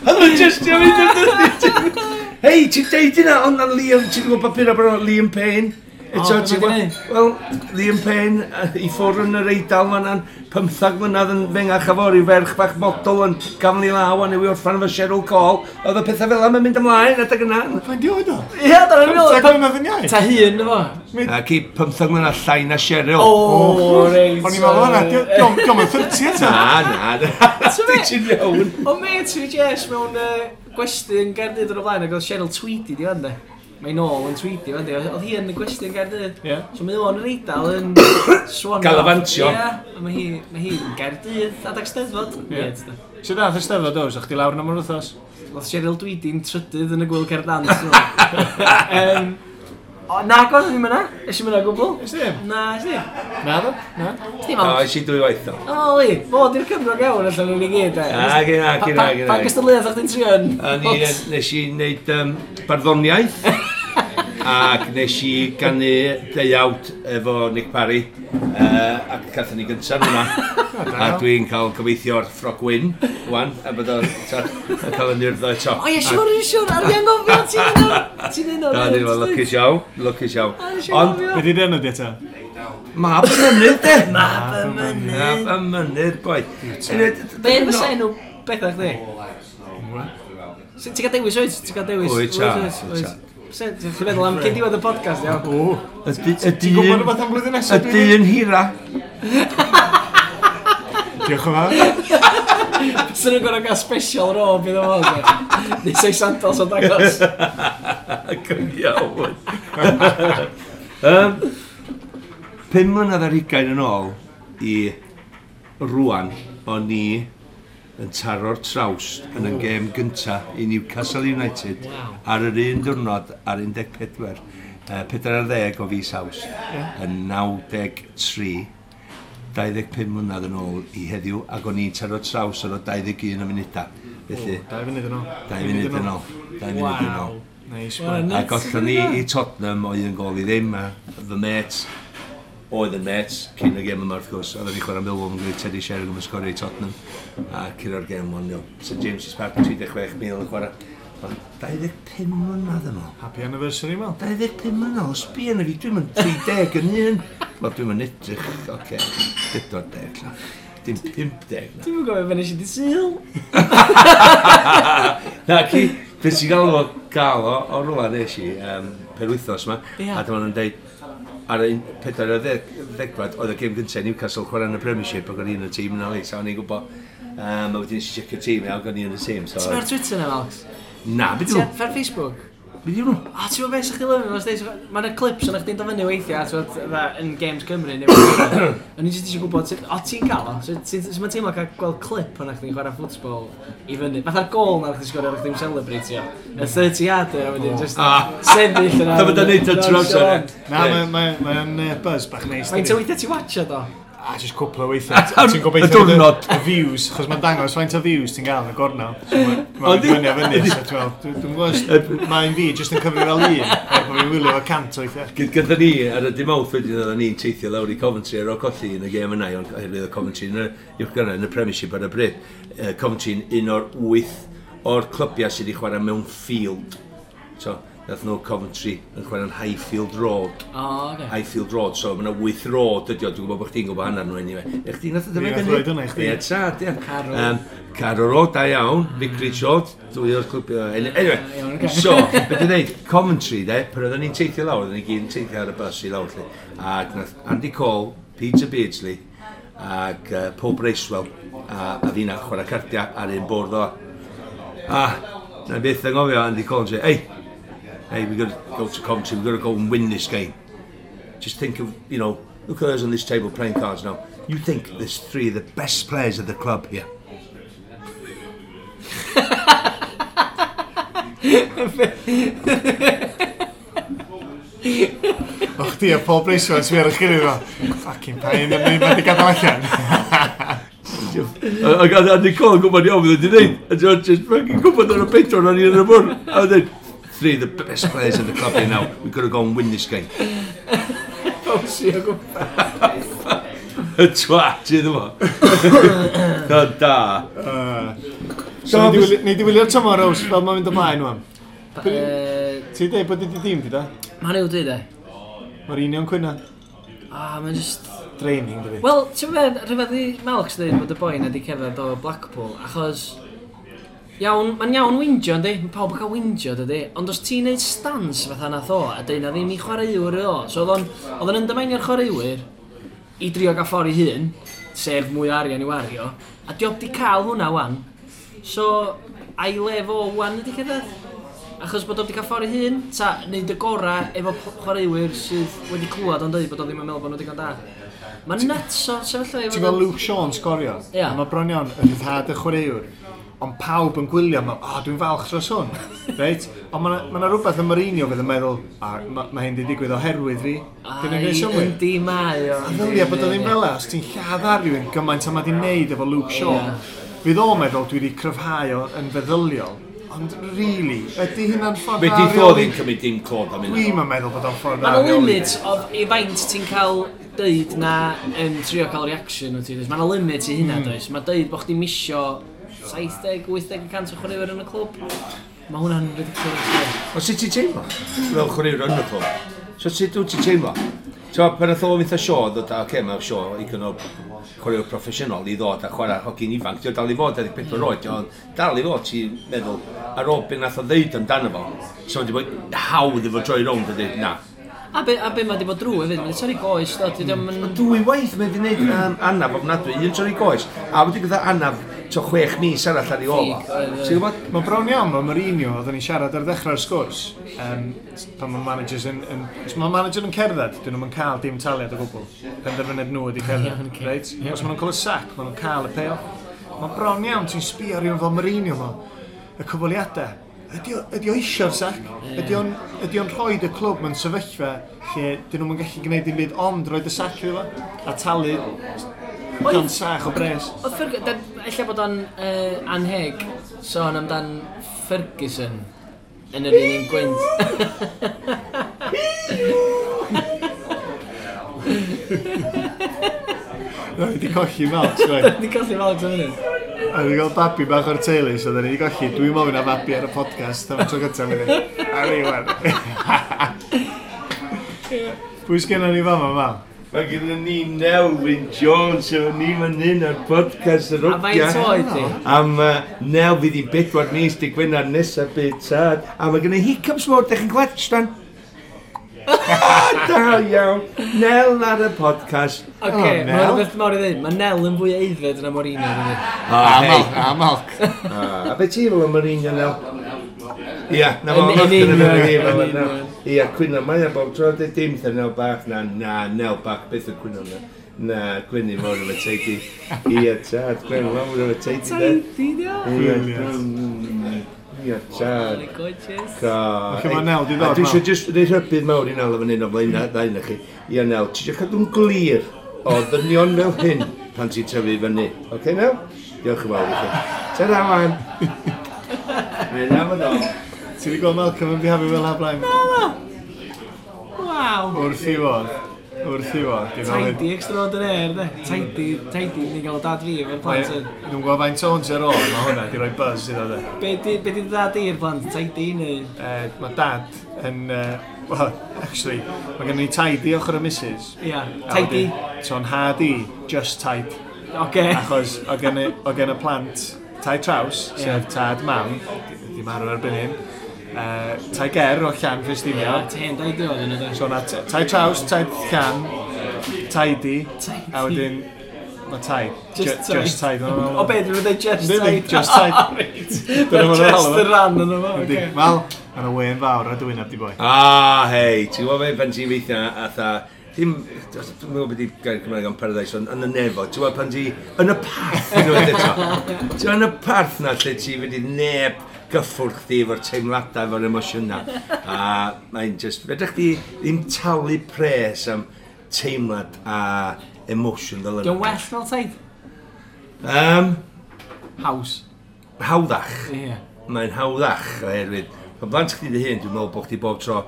Oedd nhw'n just i mynd. Hei, ti'n deud yna, ond na Liam, ti'n gwybod papur bod Liam Payne? Eto, ti'n gwybod? Wel, Liam Payne i ffwrdd yn yr Eidal fan'na'n 15 mlynedd yn fengach a fo, ryw ferch bach model yn gafel i law a newi orffan efo Cheryl Cole. Oedd y pethau fel yma'n mynd ymlaen adeg yna. Faint di oed o? Ie, dyna'n meddwl. 15 mlynedd yn iau? Ta hun efo. Ac i 15 mlynedd llai na Cheryl. O, reit. O'n i'n meddwl hwnna, diolch yn 30 eto. Na, na. Ti'n iawn. O met fi Jess mewn gwesty yn Gaerdydd o'r blaen ac oedd Cheryl Tweedy di fan de. Mae'n nôl yn Tweedy fan de. Oedd hi yn y gwesty yn Gaerdydd. Ie. So mae o'n yr Eidal yn swan. Galafantio. Ie, a mae hi yn Gaerdydd adag Steddfod. Ie. Weird, de. Sut dath y Steddfod oes? O'ch chdi lawr am yr wythnos? Oedd Cheryl Tweedy'n trydydd yn y gwyl Cerdans. O, na, gwrdd ddim yna. Es i'm yna gwbl. Ys ddim? Na, es ddim. Na ddo? Na? Es ddim O, ond. es i dwy waith o. O, li, fod i'r Cymro iawn allan o'n i gyd, e. Na, gyn, na, gyn, na, gyn. Pa gystadleuaeth o'ch ti'n trio yn? A ni, nes i wneud barddoniaeth ac nes i ganu deuawd efo Nick Parry ac gathon ni gyntaf hwnna a dwi'n cael gobeithio'r ffrog wyn wan a bod o'n cael yn urdd eto. O ie, siwr, siwr, ar fi angofio, ti'n un o'r... Ti'n un o'r... Na, ni'n lwcus iawn, lwcus iawn. A, nes i Ond anghofio. Be di enw di eto? Mab y Mynydd, de! Mab y Mynydd. Mab y Mynydd, boi. Be fysa enw bethau chdi? Ti'n cael dewis, oes? Ti'n cael dewis? Wyt, ta, wyt, ta. Ti'n meddwl am cyn diwedd y podcast, iawn? O, Y ti'n gwybod dyn... rhywbeth am blwyddyn Y nesaf? Dwi dyn hira. Diolch yn fawr. Sy'n nhw'n gorau gael special robe iddo fo. Neu sei sandals o'n dangos. Yn iawn. 25 mlynedd yn ôl i rwan, o'n i yn taro'r trawst yn y gêm gynta i Newcastle United ar yr un diwrnod ar 14, 40 o fis Awst, yn 93, 25 mlynedd yn ôl i heddiw, ac o'n i'n taro'r traws ar o 21 o munudau. Felly, 2 funud yn ôl. 2 funud yn ôl. 2 funud yn ôl. Neis, Wel, boi. A gollon ni i Tottenham o 1-0, a fy mêt oedd yn mêt cyn y gêm yma wrth gwrs, oedden ni chwarae Millwall yn gwneud Teddy Sheringham yn sgorio i Tottenham a curo'r gêm 1-0. St James's Park 36,000 yn chwarae. Ond 25 mlynedd yn ôl. Happy anniversary, Mel. 25 mlynedd, os sbia na fi, dwi'n mynd 30 yn un. Wel, dwi'n mynd edrych, oce, 40 la. Dim 50 na. Dwi'n gwybod beth nes i di Sul. Na, ci, beth sy'n gael o gael o rwla nes i penwythnos yma, Ie. a dyma nhw'n deud, ar y 40 oedd y gêm gyntaf Newcastle chwarae yn y Premiership ac o'n i yn y tîm yna, so o'n i'n gwybod. A wedyn nes i checio'r tîm, ac o'n i yn y tîm. So, Ti'n ar Twitter na, Alex? Na, beth Ti yw? ar Facebook? Beth yw nhw? O, ti'n gwybod beth sy'ch chi lyfio? Mae yna clips yna chdi'n dod fyny weithiau, ti'n gwbod, fatha, yn Games Cymru neu beth. O'n i jyst eisiau gwybod, o ti'n cael o? So, Sut mae'n teimlo cael gweld clip o'na chdi'n chwarae ffwtbol i fyny? Fatha'r gol na chdi'n sgorio, o'ch chdi'n celebratio. Y 30 yarder, a wedyn just Ah. sefyll yna. Dyma da'n neud o trwy amser, ie. Na, mae'n buzz bach neis. Faint dydi? o weithiau ti'n watcha do? A just cwpl o weithiau. Ti'n gobeithio Y diwrnod. Y views, chos mae'n dangos faint o views ti'n gael yn y gornel. So Mae'n Yndi? fyny a fyny. So ti'n meddwl, dwi'n gwybod, mae'n fi jyst yn cyfri fel un, er bod fi'n wylio fo 100 o weithiau. Gyda ni, ar y dim mawrth wedyn, oedden ni'n teithio lawr i Coventry ar ôl colli yn y gêm yna, ond oherwydd oedd Coventry yn y uwch gynghrair yn y Premiership ar y bryd. Coventry'n un o'r 8 o'r clybiau sydd wedi chwarae mewn field. So, nath nhw Coventry yn chwarae'n Highfield Road. O, oce. Highfield Road, so mae yna 8 road ydi o, dwi'n gwybod bod chdi'n gwybod hanner nhw anyway. E chdi nath o Fi dyma nath roid hwnna i chdi. Ie, tad, ie. Carrow. Carrow Road, da iawn. Vicarage Road, dwy o'r clwbiau. Anyway, Iawn, ocê. so, beth dwi'n dweud, Coventry, de, pan oedden ni'n teithio lawr, oedden ni gyd yn teithio ar y bus i lawr, lle. Ac nath Andy Cole, Peter Beardsley, ac Paul Bracewell, a fi'na chwarae cardiau ar un bwrdd o. A, na byth yn gofio Andy Cole yn dweud, hey, hey, we've got to go to Coventry, we've got to go and win this game. Just think of, you know, look at us on this table playing cards now. You think there's 3 of the best players of the club here. O chdi a Paul Bracewell yn sbio ar eich gilydd fel, fucking pain, yn mynd wedi gadael allan. Ac Andy Cole yn gwybod iawn beth wedi dweud. A ti'n just fucking gwybod ar y pedwar o'n i yn y bwrdd. A wedyn, 3 of the best players in the club here now. We've got to go and win this game. Bowsio o gwmpas. Y twat iddo fo. Da, da. So, nei di wylio'r tymor, Ows, fel mae'n mynd ymlaen wan. Ti'n dweud bod di dîm di da? Mae'n yw dwi, de. Mourinho'n cwyno. Ah, mae'n just... Draining, dydi. Wel, ti'n meddwl, rhyfedd i Malks dweud bod y boi na di cerdded o Blackpool, achos... Iawn, mae'n iawn wingio, yndi? Mae pawb yn cael wingio, dydi? Ond os ti'n neud stance fatha nath o, a deud na ddim i chwaraewyr o, so oedd o'n undermineio'r chwaraewyr i drio gael ffordd i hun, sef mwy o arian i wario, a di o di cael hwnna wan. So, a'i le fo wan ydi cerdded? Achos bod o wedi cael ffordd i hun, ta neud y gorau efo chwaraewyr sydd wedi clywed o'n dweud bod o ddim yn meddwl bod nhw digon da. Mae'n nuts o sefyllfa i Ti'n gweld Luke Shaw'n sgorio? Ie. A Mae bron iawn yn rhyddhad y chwaraewr. Ond pawb yn gwylio, ma, o, dwi'n falch dros hwn. Reit? Ond mae yna rhywbeth yn Mourinho fydd yn meddwl, a mae ma hyn di digwydd oherwydd fi. Dyn nhw'n gwneud synnwyr. Yndi mae o. A ddylia bod o ddim fel 'na, os ti'n lladd ar rhywun gymaint a mae di wneud efo Luke Shaw. Ie. Fydd o'n meddwl dwi wedi cryfhau o yn feddyliol. Ond really, ydy hynna'n ffordd Fe dda di o ddo reoli? ddim cymryd dim clod am hynna. Dwi'm yn meddwl bod o'n ffordd dda Mae'n o reoli. limit of i faint ti'n cael deud na yn trio cael reaction wyt ti. does? Mae'n limit i hynna, does? Mae deud bod chdi'n misio 70-80% o chwaraewyr yn y clwb. Mae hwnna'n ridiculous. ie. Ond sut ti'n teimlo? Fel chwaraewr yn y clwb. So sut wyt ti'n teimlo? So, pan nath o fynd â Shaw, ddod, oce, okay, mae Shaw igon o chwaraewr proffesiynol i ddod a chwarae hogyn ifanc. Dio dal i fod 24 oed, dio dal i fod, ti'n meddwl, ar ôl beth nath o ddeud amdano fo, so wedi bod hawdd efo droi rownd a dweud, na. A be mae di bod drwy hefyd, mae'n torri goes, do, ti ddim yn... Dwy waith mae wedi gwneud anaf ofnadwy, un torri goes, a wedi gyda anaf to 6 mis arall ar ei ôl o. Ffug, oedd, Ti'n gwybod? Mae bron iawn, mae Mourinho, oedden ni'n siarad ar ddechrau'r sgwrs, pan mae managers yn, os mae manager yn cerdded, dyn nhw'n cael dim taliad o gwbl. Penderfyniad nhw ydi cerdded, Iawn, ocê. reit? Os maen nhw'n cael y sac, maen nhw'n cael y payoff. Mae bron iawn, ti'n sbio ar rhywun fel Mourinho mo, y cyfweliadau. Ydy o eisiau'r sac? Ydy o'n rhoi y clwb mewn sefyllfa lle dyn nhw'n gallu gwneud dim byd ond roed y sac iddo fo? A talu gan sach o bres. Oedd Ferguson, ella bod o'n anheg sôn amdan Ferguson yn yr un gwynt. Ni wedi colli Malks, right? Di colli Malks am hynny. A wedi cael babi bach o'r teulu, so da ni wedi colli. Dwi'n mofyn am babi ar y podcast am y tro gyntaf i fi. A ni, wan. Pwy sgynnon ni fama, Mal? Mae gyda ni Nelwyn Jones efo ni fan hyn ar podcast yr A faint oed di? Am Nel fydd hi'n 4 mis dy Gwener nesaf bydd tad. A mae gyda hiccups mawr, dych chi'n gweld, Stan? Da iawn. Nel ar y podcast. Oce, Oh, mae'n Nel. rhywbeth mawr i ddweud. Mae Nel yn fwy aeddfed na Mourinho, dydi. Ah, hei. A Malk. Ah, a be ti fel y Mourinho, Nel? Ia, na fo, Yn union, yn union. Ia, cwyno, mae o bob tro, dweud dim wrtha Nel bach, na, na, Nel bach, beth y cwyno na. Na, gwynu mawr efo teidi. Ia, tad, gwynu mawr efo teidi, de. Tidy, di o. Ia, Brilliant. Ia, tad. Gorgeous. Felly mae Nel 'di ddod, A dwi Mal. eisiau just rhoi rhybudd mawr i Nel efo hyn o flaen ddau na chi. Ia, Nel, ti eisiau cadw'n glir o ddynion fel hyn pan ti'n tyfu fyny. Oce, Nel? Diolch yn fawr i chi. Ta-ra, wan. Mae'n am yn ôl. Ti wedi gweld Malcolm yn bihafio fel ha blaen? Waw. Wrth i fod. Wrth i fod. Di fel hyn. Tidy extraordinaire, de. Tidy, tidy, ni'n gael dad fi efo'r plant hyn. Dwi'n gwybod faint o'n ar ôl, mae hwnna di roi buzz iddo de. Be di dad i'r plant? Tidy neu? Mae dad yn... Well, actually, mae gen i tidy ochr y missus. Ia, A tidy. wedyn, So yn had i, just tied. Oce. Achos o gen y plant tai traws, sef tad mam, di marw erbyn hyn, tai ger o Llan Ia, Ffestiniog. ten tidy oedd yna, de. So na tai traws, tai llan, tidy, Tidy. a wedyn mae tai. Just tied. Just tied. O be, dwi'n dweud just Yndi, tied? just tied. Reit. Dyna ma' nhw'n Just alw fo. y ran yna fo, Yndi. oce. Wel, mae yna wen fawr ar dy wyneb di boi. Ah, hei, ti'n gwybod be, pan ti'n weithio atha, ddim, dwi'n meddwl beth i gair Cymraeg am paradise, ond yn y nefo, ti'n gwybod pan ti, yn y parth, unwaith eto. Ti'n gwybod yn y parth na lle ti fynd i neb gyffwrdd chdi efo'r teimladau, efo'r emosiynau. A mae'n just, fedrech chdi ddim talu pres am teimlad a emotion fel yna. Dwi'n well fel taid? Haws. Hawddach. Ie. Mae'n hawddach oherwydd pan blant chdi dy hun, dwi'n meddwl bod chdi bob tro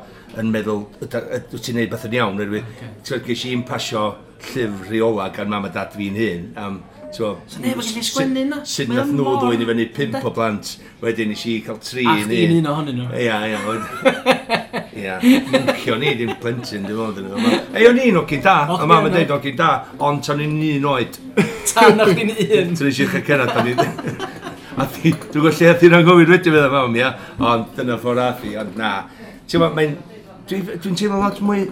yn meddwl, wyt ti'n neud beth yn iawn, oherwydd, Ocê. okay. Ges i'n pasio llyfr rheola gan mam a dad fi'n hun, am, t'wo, So neb yn gallu sgwennu na? Sut Mae o nath nhw mor- ddwyn i fyny pump o blant, wedyn nes i cael tri A yn chdi'n un ohonyn nhw. Ia, ia. Ia, mwncio ni, dim plentyn, dim ond yn yma. Ei, o'n i'n ogyn da, a mam yn deud ogyn da, ond tan i'n un oed. Tan o'ch di'n un. Tan eisiau cyrraedd, tan i... A dwi'n gwybod lle ath i'n anghofio wedyn fydda mam, ia, ond dyna ffordd ath i, ond na. Ti'n gwybod, mae'n... Dwi'n teimlo lot mwy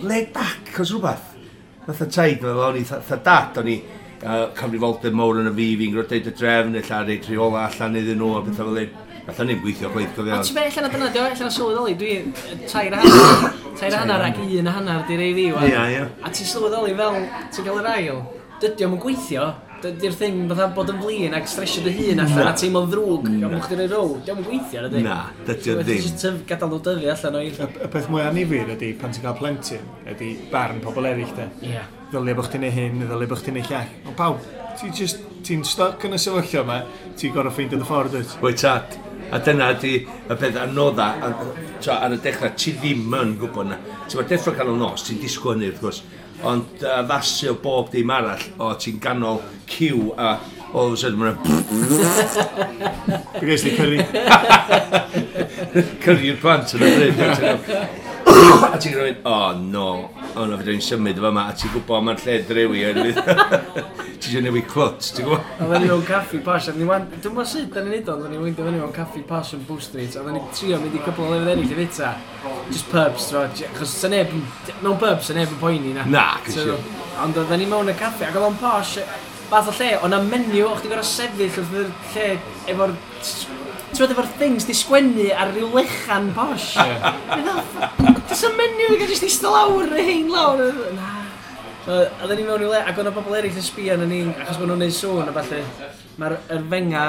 laid back os rhywbeth. Fatha taid, o'n i, fatha dad, o'n i cyfrifoldeb mawr yn y fi, fi'n gwrdd deud y drefn, ella reid rheola allan iddyn nhw, a bethau fel hyn. Allan ni'n gweithio chwaith, cofio. Ond ti'n be, allan o dyna, dio, allan o sylweddoli, dwi 3.5, 3.5 ac 1.5 di rei fi, wan. Ia, ia. A ti'n sylweddoli fel, ti'n cael yr ail, dydy o'm yn gweithio, dydy'r thing fatha bod yn flin ac stresio dy hun allan a teimlo'n ddrwg am bod chdi'n rhoi row, dio'm yn gweithio, ydy? Na, dydy o ddim. Ti'n just gadael nhw dyfu allan o'i... Y peth mwy annifyr ydy, pan ti'n cael plentyn, ydy barn pobl eraill, de. Ie. Ddylia bod chdi'n neud hyn, ddylia bod chdi'n neud llall. Ond pawb, ti'n just, ti'n stuck yn y sefyllfa yma, ti'n gorfod ffeindio dy ffordd, dwyt? Wyt tad. A dyna ydy y peth anodda, ar y dechrau, ti ddim yn gwybod na. Ti'n ma deffro canol nos, ti'n disgwyl hynny wrth gwrs, ond addasu o bob dim arall, o ti'n ganol ciw a all of a sudden mae'n Fi ges di curry. Curry'r plant yn y bryd. A ti'n gwneud, oh no, oh no, fedra i'n symud o fama, a ti'n gwybod mae'r lle drewi, oherwydd ti eisiau newid clwt, ti'n gwybod? Oedden ni mewn caffi posh, a ni wan, dwi'n gwybod sut da ni'n neud o, oedden ni'n weindio fyny mewn caffi posh yn Bow Street, a oedden ni'n trio mynd i cwpl o lefydd eraill i fita. Just pubs, t'mo, achos sa neb, mewn pubs, sa neb yn poeni na. Na, cysio. Ond oedden ni mewn y caffi, ac oedd o'n posh, fath o lle, o'na menu, o'ch ti'n gorfod sefyll wrth yr lle efo'r, ti'n gwbod, efo'r things di sgwennu ar ryw lechan posh. Does y menu i gael jyst eistedd lawr, y hein lawr. Na. So, oedden ni mewn i le, ac o'na bobl eraill yn sbio arnon ni, achos bod nhw'n neud sŵn a ballu. Mae'r yr fenga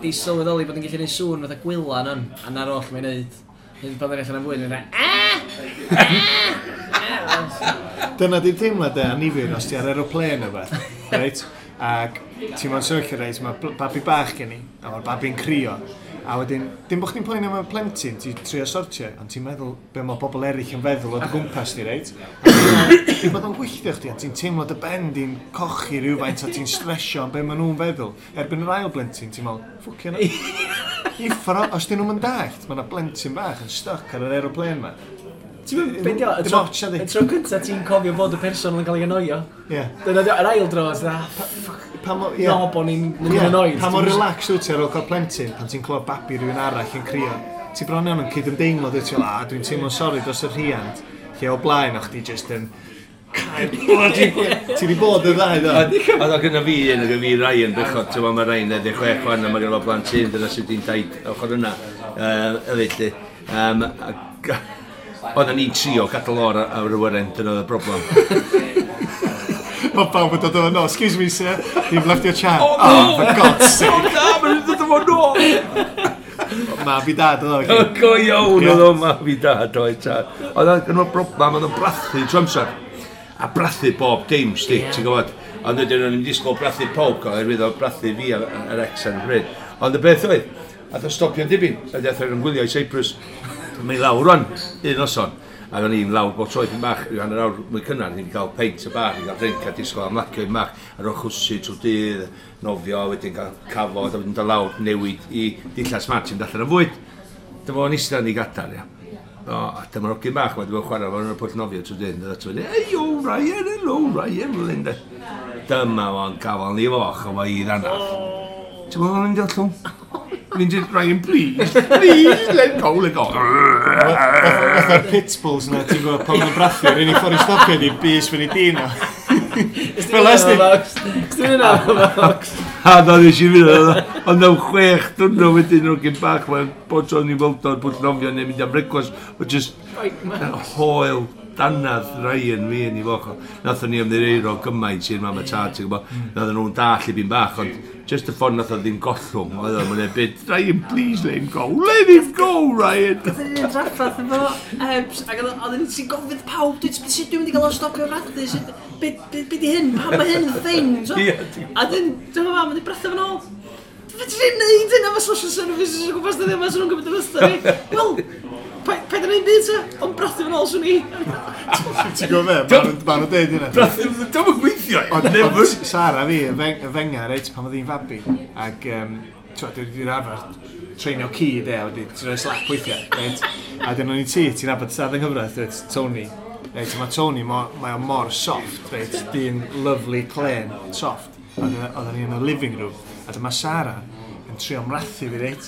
di sylweddoli bod yn gallu neud sŵn fatha gwylan yn, a na'r oll mae'n neud. Hyd pan ddyn allan am fwyd, mae'n dweud, "Ah! Ah!" Dyna di'r teimlad de, annifyr, os ti ar aeroplane o beth, reit? Ac ti'n mewn sefyllfa, reit, mae babi bach gen i, a mae'r babi'n crio. A wedyn, dim bod chdi'n poeni am y plentyn, ti'n trio sortio, ond ti'n meddwl be mae bobl eraill yn feddwl o dy gwmpas di, reit? A ti'n bod o'n gwylltio chdi, a ti'n teimlo dy ben di'n cochi rhywfaint, a ti'n stresio am be maen nhw'n feddwl. Erbyn yr ail blentyn, ti'n meddwl, ffwcio na. Uffar, os dyn nhw'n dallt, mae yna blentyn bach yn stuck ar yr aeroplane ma. Ti'n mynd, be di o, y Dim tro, ots, ydi. y tro cynta ti'n cofio bod y person yn cael ei annoio. Ie. Dyna di o, yr ail dro, ti'n dda, Pa mor, ie. no, bo ni'n mynd Ie, yn annoyed. Pa mor relaxed wyt ti ar ôl cael plentyn pan ti'n clywed babi rhywun arall yn crio. Ti bron iawn yn cydymdeimlo, dwyt ti fel, a dwi'n teimlo'n sori dros y rhiant. Lle o blaen o'ch di just yn cael bloody... Ti di bod y ddau, do? A oedd gyda fi un, oedd gyda fi Ryan, bechod, ti'n gwbod, mae Ryan 16 wan, a mae gyda fo blant hyn, dyna sydd wedi'n daid ochr yna, hefyd, lly. Oedden ni'n trio gadael o'r ar y wyren, dyna oedd y broblem. Mae pawb yn dod o, no, excuse me, sir, you've left your chair. Oh, Oh, for God's sake. Na, mae'n dod o nôl! Mab i dad, oedd o. Go iawn Ie. oedd o mab i dad, oedd tad. Oedd o'n gyda broblem, oedd o'n brathu trwy amser. A brathu bob dim, sti, Ie. ti'n gwybod. Ond wedyn o'n i'n disgwyl brathu pawb, oherwydd oedd brathu fi a'r ex ar y pryd. Ond y beth oedd, ath o stopio'n dibyn, a dath o'n gwylio i Cyprus. Mae'n lawr rwan, un noson. Ac o'n i'n lawr bob tro ipyn bach, rhyw hanner awr mwy cynnar, ni'n cael peint y bar, ni'n cael drink a disgwyl am lacio i'n bach, ar ôl chwsu trwy dydd, nofio, wedyn cael cafod, a wedyn dod lawr, newid i dillad smart, ti'n allan am fwyd. Dyma fo'n eistedd yn ei gadar, ia. O, a dyma'r hogyn bach, wedi bod yn chwarae fo'n y pwll nofio trwy dydd, a dod hey, yo, Ryan, hello, Ryan, fel hyn, de. Dyma fo'n gafal ni foch, o fo i ddanath. Ti'n meddwl o'n mynd i ollwng? Mynd i, Ryan, please, please, let go, let go. Fatha'r pit bulls na, ti'n gwybod, pan ma'n brathu, yr unig ffordd i stopio ydi bys fyny dyn o. Fel ys di. Ti'n mynd am box. A na nes i fynd, ond mewn 6 diwrnod wedyn o'r gyn bach, mae'n bod tro'n i weld o'r pwll nofio neu mynd am brecwast, o just hoel danadd Ryan fi yn ei foch. Nathon ni ymddiheuro gymaint i'r mam a tad, ti'n gwybod. Nathon nhw'n dall i fi'n bach, ond just y ffordd nath o ddim gollwng, oedd o'n mynd byd, Ryan, please let him go, let him go, Ryan. Oedden ni'n trafferth efo Ebs, ac oedden ni'n ti'n gofyn pawb, dwi sut dwi'n mynd i gael o stopio brathu, sut, be di hyn, pam mae hyn yn thing, so? Ie, ti'n- A dyn, dyma mam yn brathu fo'n ôl. Fedri ni'n neud hyn efo social services o gwmpas dyddiau yma, swn nhw'n gwybod y fysta fi. Wel, paid yn neud byd ta, ond brathu fo'n ôl swn i. Ti'n gwybod be? Ma' nhw'n deud hynna. Dwi'n yn gweithio, Ond never. ond Sara fi, y fenga, reit, pan oedd hi'n fabi, ac, ti'n dwi wedi'r arfer treinio ci, de, a wedi ti'n rhoi slap weithiau, reit? A dyn o'n i ti'n nabod tad yng nghyfraith, reit, Tony. Reit, a mae Tony, mae o mor soft, reit, dyn lovely, clen, soft. A oedden ni yn y living room, a dyma Sara yn trio mrathu fi, reit?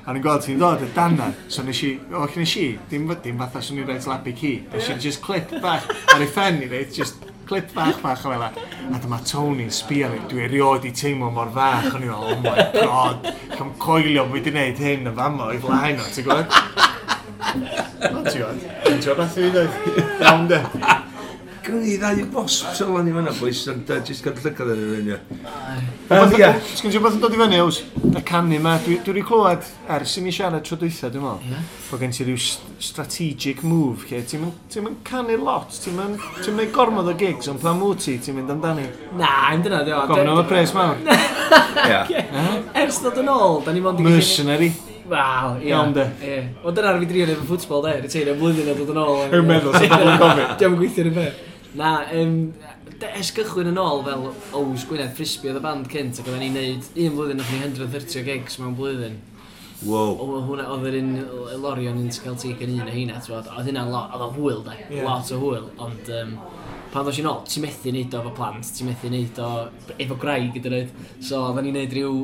A o'n i'n gweld ti'n dod y dana, so nes i, o, nes i, dim fatha swn i'n reit slap i ci. Nes i just clip bach ar ei phen i, reit, just clip bach bach o fel 'a. A dyma Tony'n sbio fi, dwi erioed i teimlo mor fach, o'n i'n meddwl, oh my god, cam coelio bod fi wedi gwneud hyn yn fama o'i flaen o, ti'n gwybod? Ond ti'n gwybod, ti'n gwybod beth i fi ddweud? Iawn de. Gynnon ni ddau wasp sylwan i fan'na, boys, ond jyst gael llygad ar yr un, ie. Ie. Sgyn ti rhywbeth yn dod i fyny, Ows? Y canu ma, dwi wedi clywed ers i ni siarad tro dwytha, dwi'n meddwl. Ie. Bod gen ti ryw strategic move, lle ti'n mynd canu lot, ti'n mynd ti'n mynd gormod o gigs, ond pan wyt ti, ti'n mynd amdani. Na, i'm dyna, dio. Gofyn am y pres mawr. Ie. Ers dod yn ôl, da ni mond i gallu- Mercenary. Wel, ie. Iawn, de. Ie. Wel, dyna ar fi drio neud efo ffwtbol, de. Retirio blwyddyn a dod yn ôl. Dwi'n meddwl, sy'n pobl yn gofyn. Diolch yn gweithio yn y beth. Na, ers gychwyn yn ôl fel Ows Gwynedd Frisbee oedd y band cynt, ac oedden ni'n neud un blwyddyn nath ni 130 o gigs mewn blwyddyn. Wow. O, hwnna, oedd yr un Lorion yn Celtic yn un o heina, ti'n gwbod, oedd hynna'n lot, oedd o'n hwyl, de, Ie. lot o hwyl, ond pan ddos i'n ôl, ti'n methu neud o efo plant, ti'n methu neud o efo gwraig hyd yn oed. So oedden ni'n neud rhyw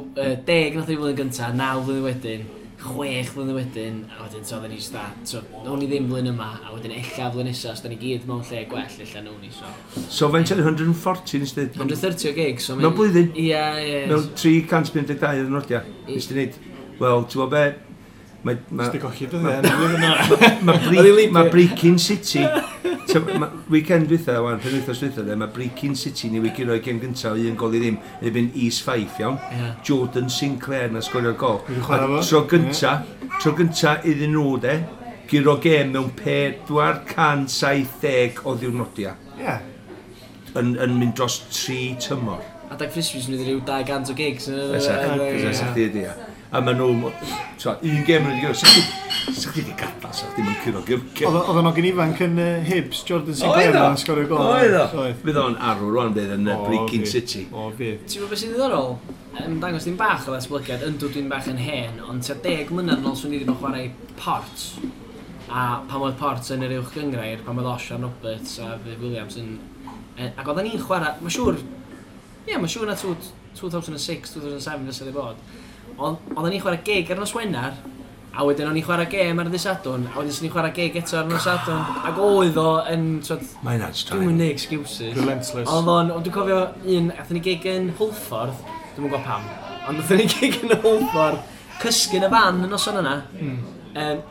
10 nath ni flwyddyn gynta, 9 flwyddyn wedyn, 6 flwyddyn wedyn, a wedyn so oedden ni jyst da, so nawn ni ddim flwyddyn yma, a wedyn ella flwyddyn nesa, os da ni gyd mewn lle gwell, ella nawn ni, so. So faint oedd 140 nes dweud? 130 o gigs, so Mewn blwyddyn? Ie, ie. Mewn 352 o ddwrnodiau. Nes di wneud, wel, ti'n gwybod be? Mae, Nes di golli dyddiau yn y flwyddyn yna. Oedd hi ma Brechin City, weekend dwytha, wan, penwythnos dwytha, de, mae Brechin City ni wedi roi gêm gyntaf un gol i ddim, yn erbyn East Fife, iawn. Ie. Jordan Sinclair na sgorio'r gol. Wedi chwarae A fo. Tro gynta iddyn nhw, de, guro gêm mewn 470 o ddiwrnodiau. Ie. Yn mynd dros 3 tymor. Adag Frisbees yn rhyw 200 o gigs. Fysa, fysa chdi ydi, ia. A maen nhw, so, un gêm nhw wedi gyrra, sa chdi wedi gadael, sa chdi ddim yn curo gêm. Oedd o'n ogyn ifanc yn Hibs, Jordan Sinclair, Oedd o? yn sgorio gol. Oedd o? Oedd. Fydd o'n arw rwan, bydd yn O, Brechin fydd. City. O, fydd. Ti'n gwybod beth sy'n ddiddorol? Yn dangos ddim bach o ddatblygiad, yndw dwi'n bach yn hen, ond tua 10 mlynedd yn ôl swn i wedi bod yn chwarae Port. A pan oedd Port yn yr uwch gyngrair, pan oedd Osian Roberts a Viv Williams yn... Ac oedden ni'n chwarae, mae'n siŵr, ie, mae'n siŵr na 2006, 2007 fysa di bod. Ond oedden ni'n chwarae gig ar nos Wener, a wedyn o'n i'n chwarae gêm ar y dydd Sadwrn, a wedyn swn i'n chwarae gig eto ar nos Sadwrn. Ac oedd o yn, twod, Mae hynna'n dwi'm straen. yn neud excuses. Relentless. Oedd o'n, ond dwi'n cofio un, athyn ni gig yn Hwlffordd, dwi'm yn gwybod pam, ond athyn ni gig yn Hwlffordd, cysgu yn y fan y noson yna.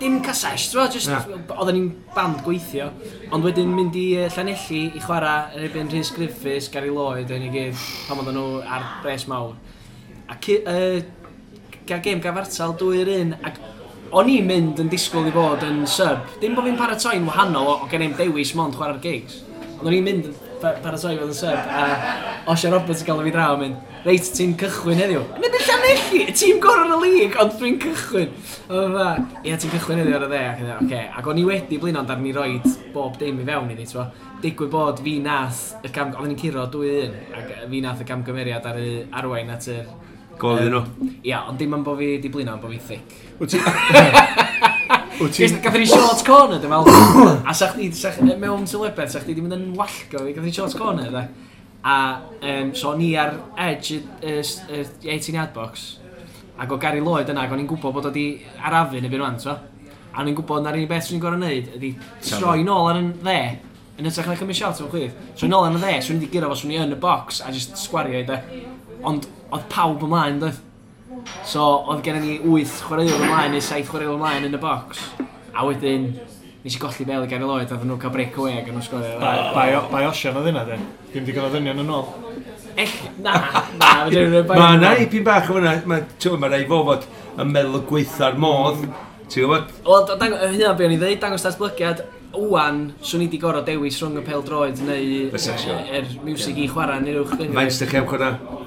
Dim casesh, ti'n gwbod, just, Na. oedden ni'n band gweithio, ond wedyn mynd i Llanelli i chwarae yn erbyn Rhys Griffiths, Gary Lloyd, yn i gyd, pan oedden nhw ar bres mawr. A gael gêm gafartal 2-1, ac o'n i'n mynd yn disgwyl i fod yn sub. Dim bod fi'n paratoi'n wahanol, o gen i'm dewis mond chwarae'r gigs. Ond o'n i'n mynd yn paratoi fod yn sub, a Osian Roberts yn gael fi draw yn mynd, reit, ti'n cychwyn heddiw. Yn mynd yn Llanelli, y tîm gorau yn y lig, ond dwi'n cychwyn. Oedd fatha, ie, ti'n cychwyn heddiw ar y dde, ac yn oce. Ac o'n i wedi blino, ond ar ni roed bob dim i fewn iddi, t'bo. Digwydd bod fi nath, y cam, oedden ni'n curo 2-1, ac fi nath y camgymeriad ar y arwain at yr Gol iddyn nhw. Ia, ond dim am bo fi di blino, ond bo fi thick. Wyt ti... Wyt ti... Gathon ni short corner, dwi'n meddwl. A sa chdi, mewn sylwebedd, sa chdi di mynd yn wallgo fi, gathon ni short corner, de. A, so o'n i ar edge y 18 yard box, ac o Gary Lloyd yna, ac o'n i'n gwybod bod o di arafu yn y byd rwan, so. A o'n i'n gwybod na'r unig beth swn i'n gorfod wneud ydi troi nôl ar yn dde, yn hytrach na cymryd shot o'n chwith. Troi nôl ar yn dde, swn i wedi gyrra fo, swn i yn y box a just sgwario i de. Ond oedd pawb ymlaen, doedd? So, oedd gennym ni 8 chwaraewr ymlaen neu 7 chwaraewr ymlaen yn y box. A wedyn, nes i golli bel i Gary Lloyd, a nhw'n cael break away ac yn nhw'n sgorio. Bai Osian oedd hynna, de. Dim digon o ddynion yn ôl. Na, na, fedra i'm rhoi bai Mae nhw. yna ipyn bach o fyna, mae rai fo fod yn meddwl y gweitha'r modd, ti'n gwybod? Wel, hynna be o'n i ddeud, dangos datblygiad, wan, swn i di gorfod dewis rhwng y pêl-droed neu Fysa, siŵr. yr miwsig i chwarae neu'r uwch gynghrair. Faint ydych chi am chwarae?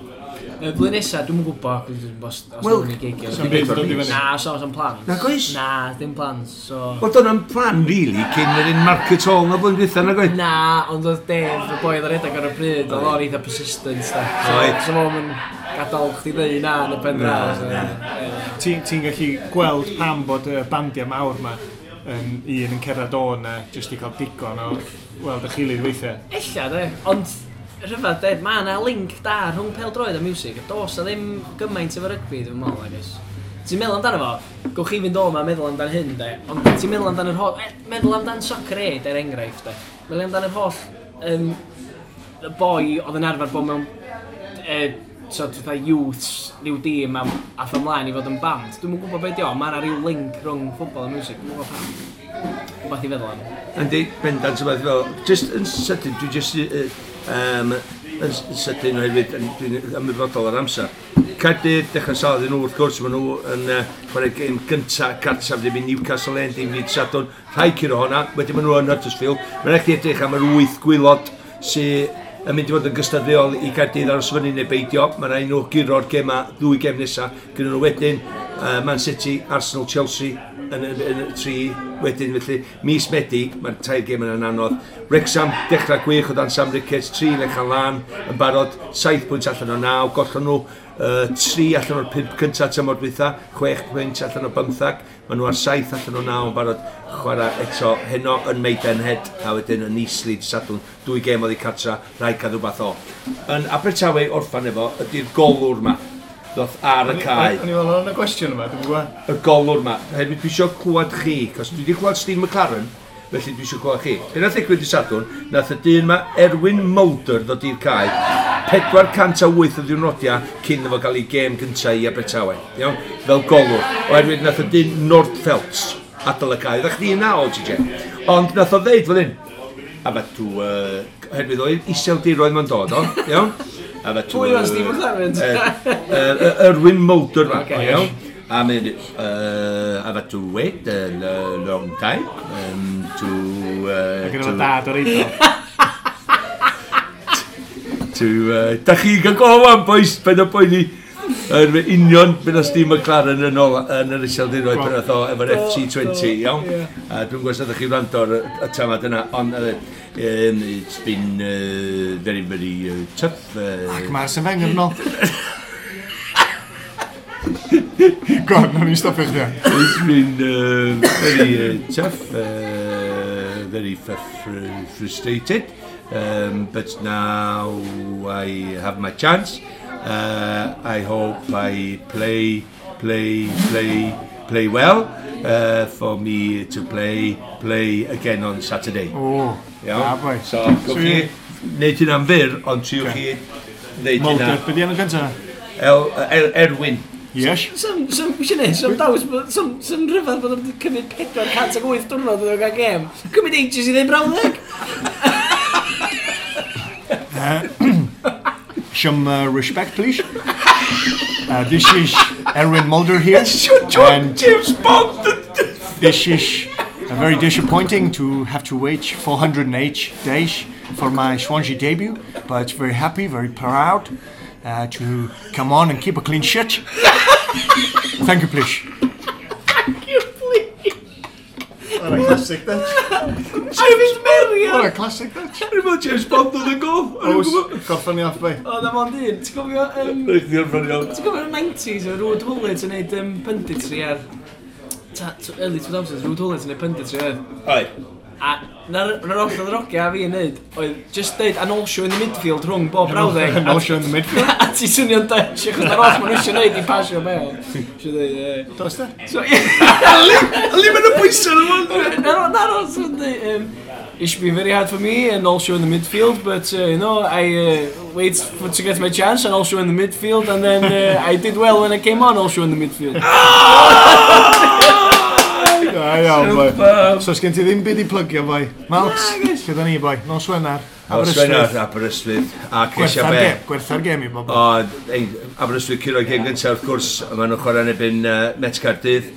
Y blwyddyn nesa, dwi'm yn gwybod os Wel, nawn ni gigio. Sa'm byd yn dod i fyny. Na, so, so'm plans. Nag oes? Na, dim plans, so... Wel, dyna'n plan, really, cyn yr un Market Hall na blwyddyn dwytha, nag oedd? Na, ond oedd Dave, y boi oedd ar redeg ar y pryd, oedd o'n eitha persistent, da. So, Oedd. so fo'n mynd... gadael chdi ddeud na yn y pen draw. Ti'n gallu gweld pam bod y bandiau mawr ma yn un yn cerdded o na jyst i cael digon o weld y gilydd weithiau. Ella, de, ond rhyfedd, de, mae yna link da rhwng pêl-droed a music, a dos na ddim gymaint efo rygbi, dwi'n meddwl, I guess. Ti'n meddwl amdano fo, gewch chi fynd o 'ma a meddwl amdan hyn, de, ond ti'n meddwl amdan yr holl, meddwl amdan Soccer Aid, er enghraifft, de. Meddwl amdan yr holl, y boi oedd yn arfer bod mewn, so, fatha youths, rhyw dîm am, ath ymlaen i fod yn band. Dwi'm yn gwybod beth di o, mae yna rhyw link rhwng ffwbol a music, dwi'm yn gwybod pam. Rhywbeth i feddwl am. Yndi, bendant rhywbeth fel. Just yn sydyn, dwi just yn sydyn oherwydd dwi'n ymwybodol o'r amser. Caerdydd, dechrau sal iddyn nhw wrth gwrs, maen nhw yn chwarae gêm gynta gartref ddim i Newcastle yn dim dydd Sadwrn. Rhaid curo honna, wedyn maen nhw yn Huddersfield. Mae'n rhaid edrych am yr wyth gwaelod sydd yn mynd i fod yn gystadleuol i Gaerdydd aros fyny neu beidio. Mae'n rhaid nhw guro'r gema, ddwy gem nesaf. Gyda nhw wedyn Man City, Arsenal, Chelsea yn y tri wedyn. Felly mis Medi, mae'r tair gem yna'n anodd. Wrexham, dechrau gwych o dan Sam Ricketts, tri lechan lan yn barod, 7 pwynt allan o 9, gollon nhw 3 allan o'r 5 cyntaf tymor dwytha, 6 pwynt allan o 15, maen nhw ar 7 allan o 9 yn barod chwarae eto heno yn Maidenhead a wedyn yn Eastleigh Sadwrn, dwy gêm oddi cartra, rhaid cael rhywbeth o. Yn Abertawe orffan efo ydy'r golwr ma, ddoth ar y cae. O'n i'n meddwl o'n y gwestiwn yma, dwi'n gwybod. Y golwr ma, hefyd dwi eisiau clywed chi, cos dwi wedi clywed Steve McLaren, felly dwi eisiau clywed chi. Be nath ddigwydd i Sadwrn, nath y dyn ma Erwin Mulder ddod i'r cae, 408 o ddiwrnodiau cyn iddo fo gael ei gêm gyntaf i Abertawe, iawn, fel golwr. Oherwydd nath y dyn Nordfeldt adael y cae. Oeddech chdi yna o, TJ? Ond nath o ddeud fel hyn, a fa to, oherwydd oedd iseldiroedd ma'n dod o, iawn? A fa Pwy oedd Steve McLaren? Erwin Mulder ma, Ocê. iawn? A mynd, I've had to wait a long time to... Ac yn efo to, dad o'r eiddo. to da chi gael gofan, boys, paid o poeni. Yr union beth oedd Steve McLaren yn ôl yn yr iseldiroedd pan oedd o efo'r FC20, iawn? A dwi'n gwybod os ydych chi wrando ar y tamad yna, ond it's been very, very tough. Ac mae'r Arsene Wenger yn ôl. Go on, nawn ni stopio chdi. It's been very tough, very frustrated, but now I have my chance. I hope I play, play, play, play well for me to play, play again on Saturday. O, Iawn? da boi. So, gewch chi wneud hynna'n fyr, ond triwch chi wneud Mulder, hynna. be di enw gyntaf? El, Erwin. Yes. Some, eisiau neud, some daws, some rhyfedd bod o'n cymryd 408 diwrnod iddo gael gêm. Cymryd ages i ddweud brawddeg. Some respect, please. This is Erwin Mulder here. And James Bond! this is very disappointing to have to wait 408 days for my Swansea debut, but very happy, very proud to come on and keep a clean sheet. Thank you, please. Thank you, please. What a classic that. James Merriam. What a classic that. Rwy'n meddwl James Bond oedd yn gol. Oes, gorffan ni off, bai. O, na mond un. Ti'n cofio... Rwy'n chdi orffan iawn. Ti'n cofio'r 90s, o Ruud Gullit yn neud punditry ar... Early 2000s, Ruud Gullit yn neud punditry oedd. Oi. A na'r oll oedd yr ogia a fi yn neud, oedd just deud and also in the midfield rhwng bob brawddeg. And also in the midfield. A ti swnio'n Dutch, achos na'r oll maen nhw eisiau neud i pasio bel. Eisiau deud, ie. Does da? So, ie. Ali mae'n y bwysau yn ymwneud. Na'r oll sy'n deud, it should be very hard for me and also in the midfield, but I wait for to get my chance and also in the midfield, and then I did well when I came on also in the midfield. Da iawn, boi. So, sgen ti ddim byd i plygio, boi? Malks, Nag oes. lle da ni, boi? Nos Wener. Nos Wener, Aberystwyth. A ceisio Gwertha'r be. gêm, gwertha'r gêm i bobl. O, ei, Aberystwyth curo gêm gyntaf, wrth gwrs, maen nhw'n chwarae yn erbyn Met Caerdydd.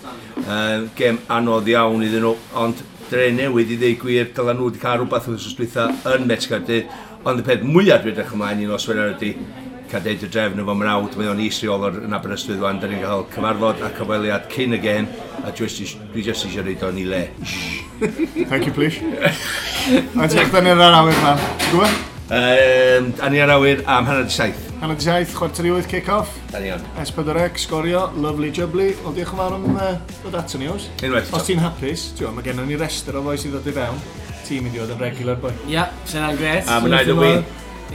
Gêm anodd iawn iddyn nhw, ond dre newydd i ddweud gwir, dyla nhw wedi cael rhywbeth wythnos dwytha yn Met Caerdydd. Ond y peth mwyaf dwi'n edrych ymlaen i nos Wener ydy cael deud y drefn efo mrawd, mae o'n is-reolwr yn Aberystwyth wan, da ni'n cael cyfarfod a cyfweliad cyn y gêm, a dwi jyst eisiau rhoid o'n i le. Thank you, please. Ond ti'n ni ar awyr, man. Ti'n gwybod? A ni ar awyr am 6:30. 6:30, 7:45 kick-off. Da ni on. S4C, Sgorio, lovely jubbly. Wel, diolch yn fawr am dod ato ni, Ows. Unwaith Os ti'n hapus, ti'n mae gennym ni restr o fois i ddod i fewn. Ti'n mynd i fod yn regular, boi. Ia, sy'n yna'n gret. A mwynhau dy win.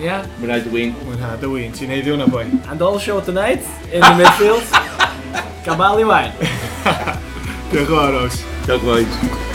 Ia. Mwynhau dy win. Mwynhau dy win. Ti'n heiddi hwnna, boi. And all show tonight in the midfield. Gabali wine. Diolch yn fawr, Ows. Diolch, boys.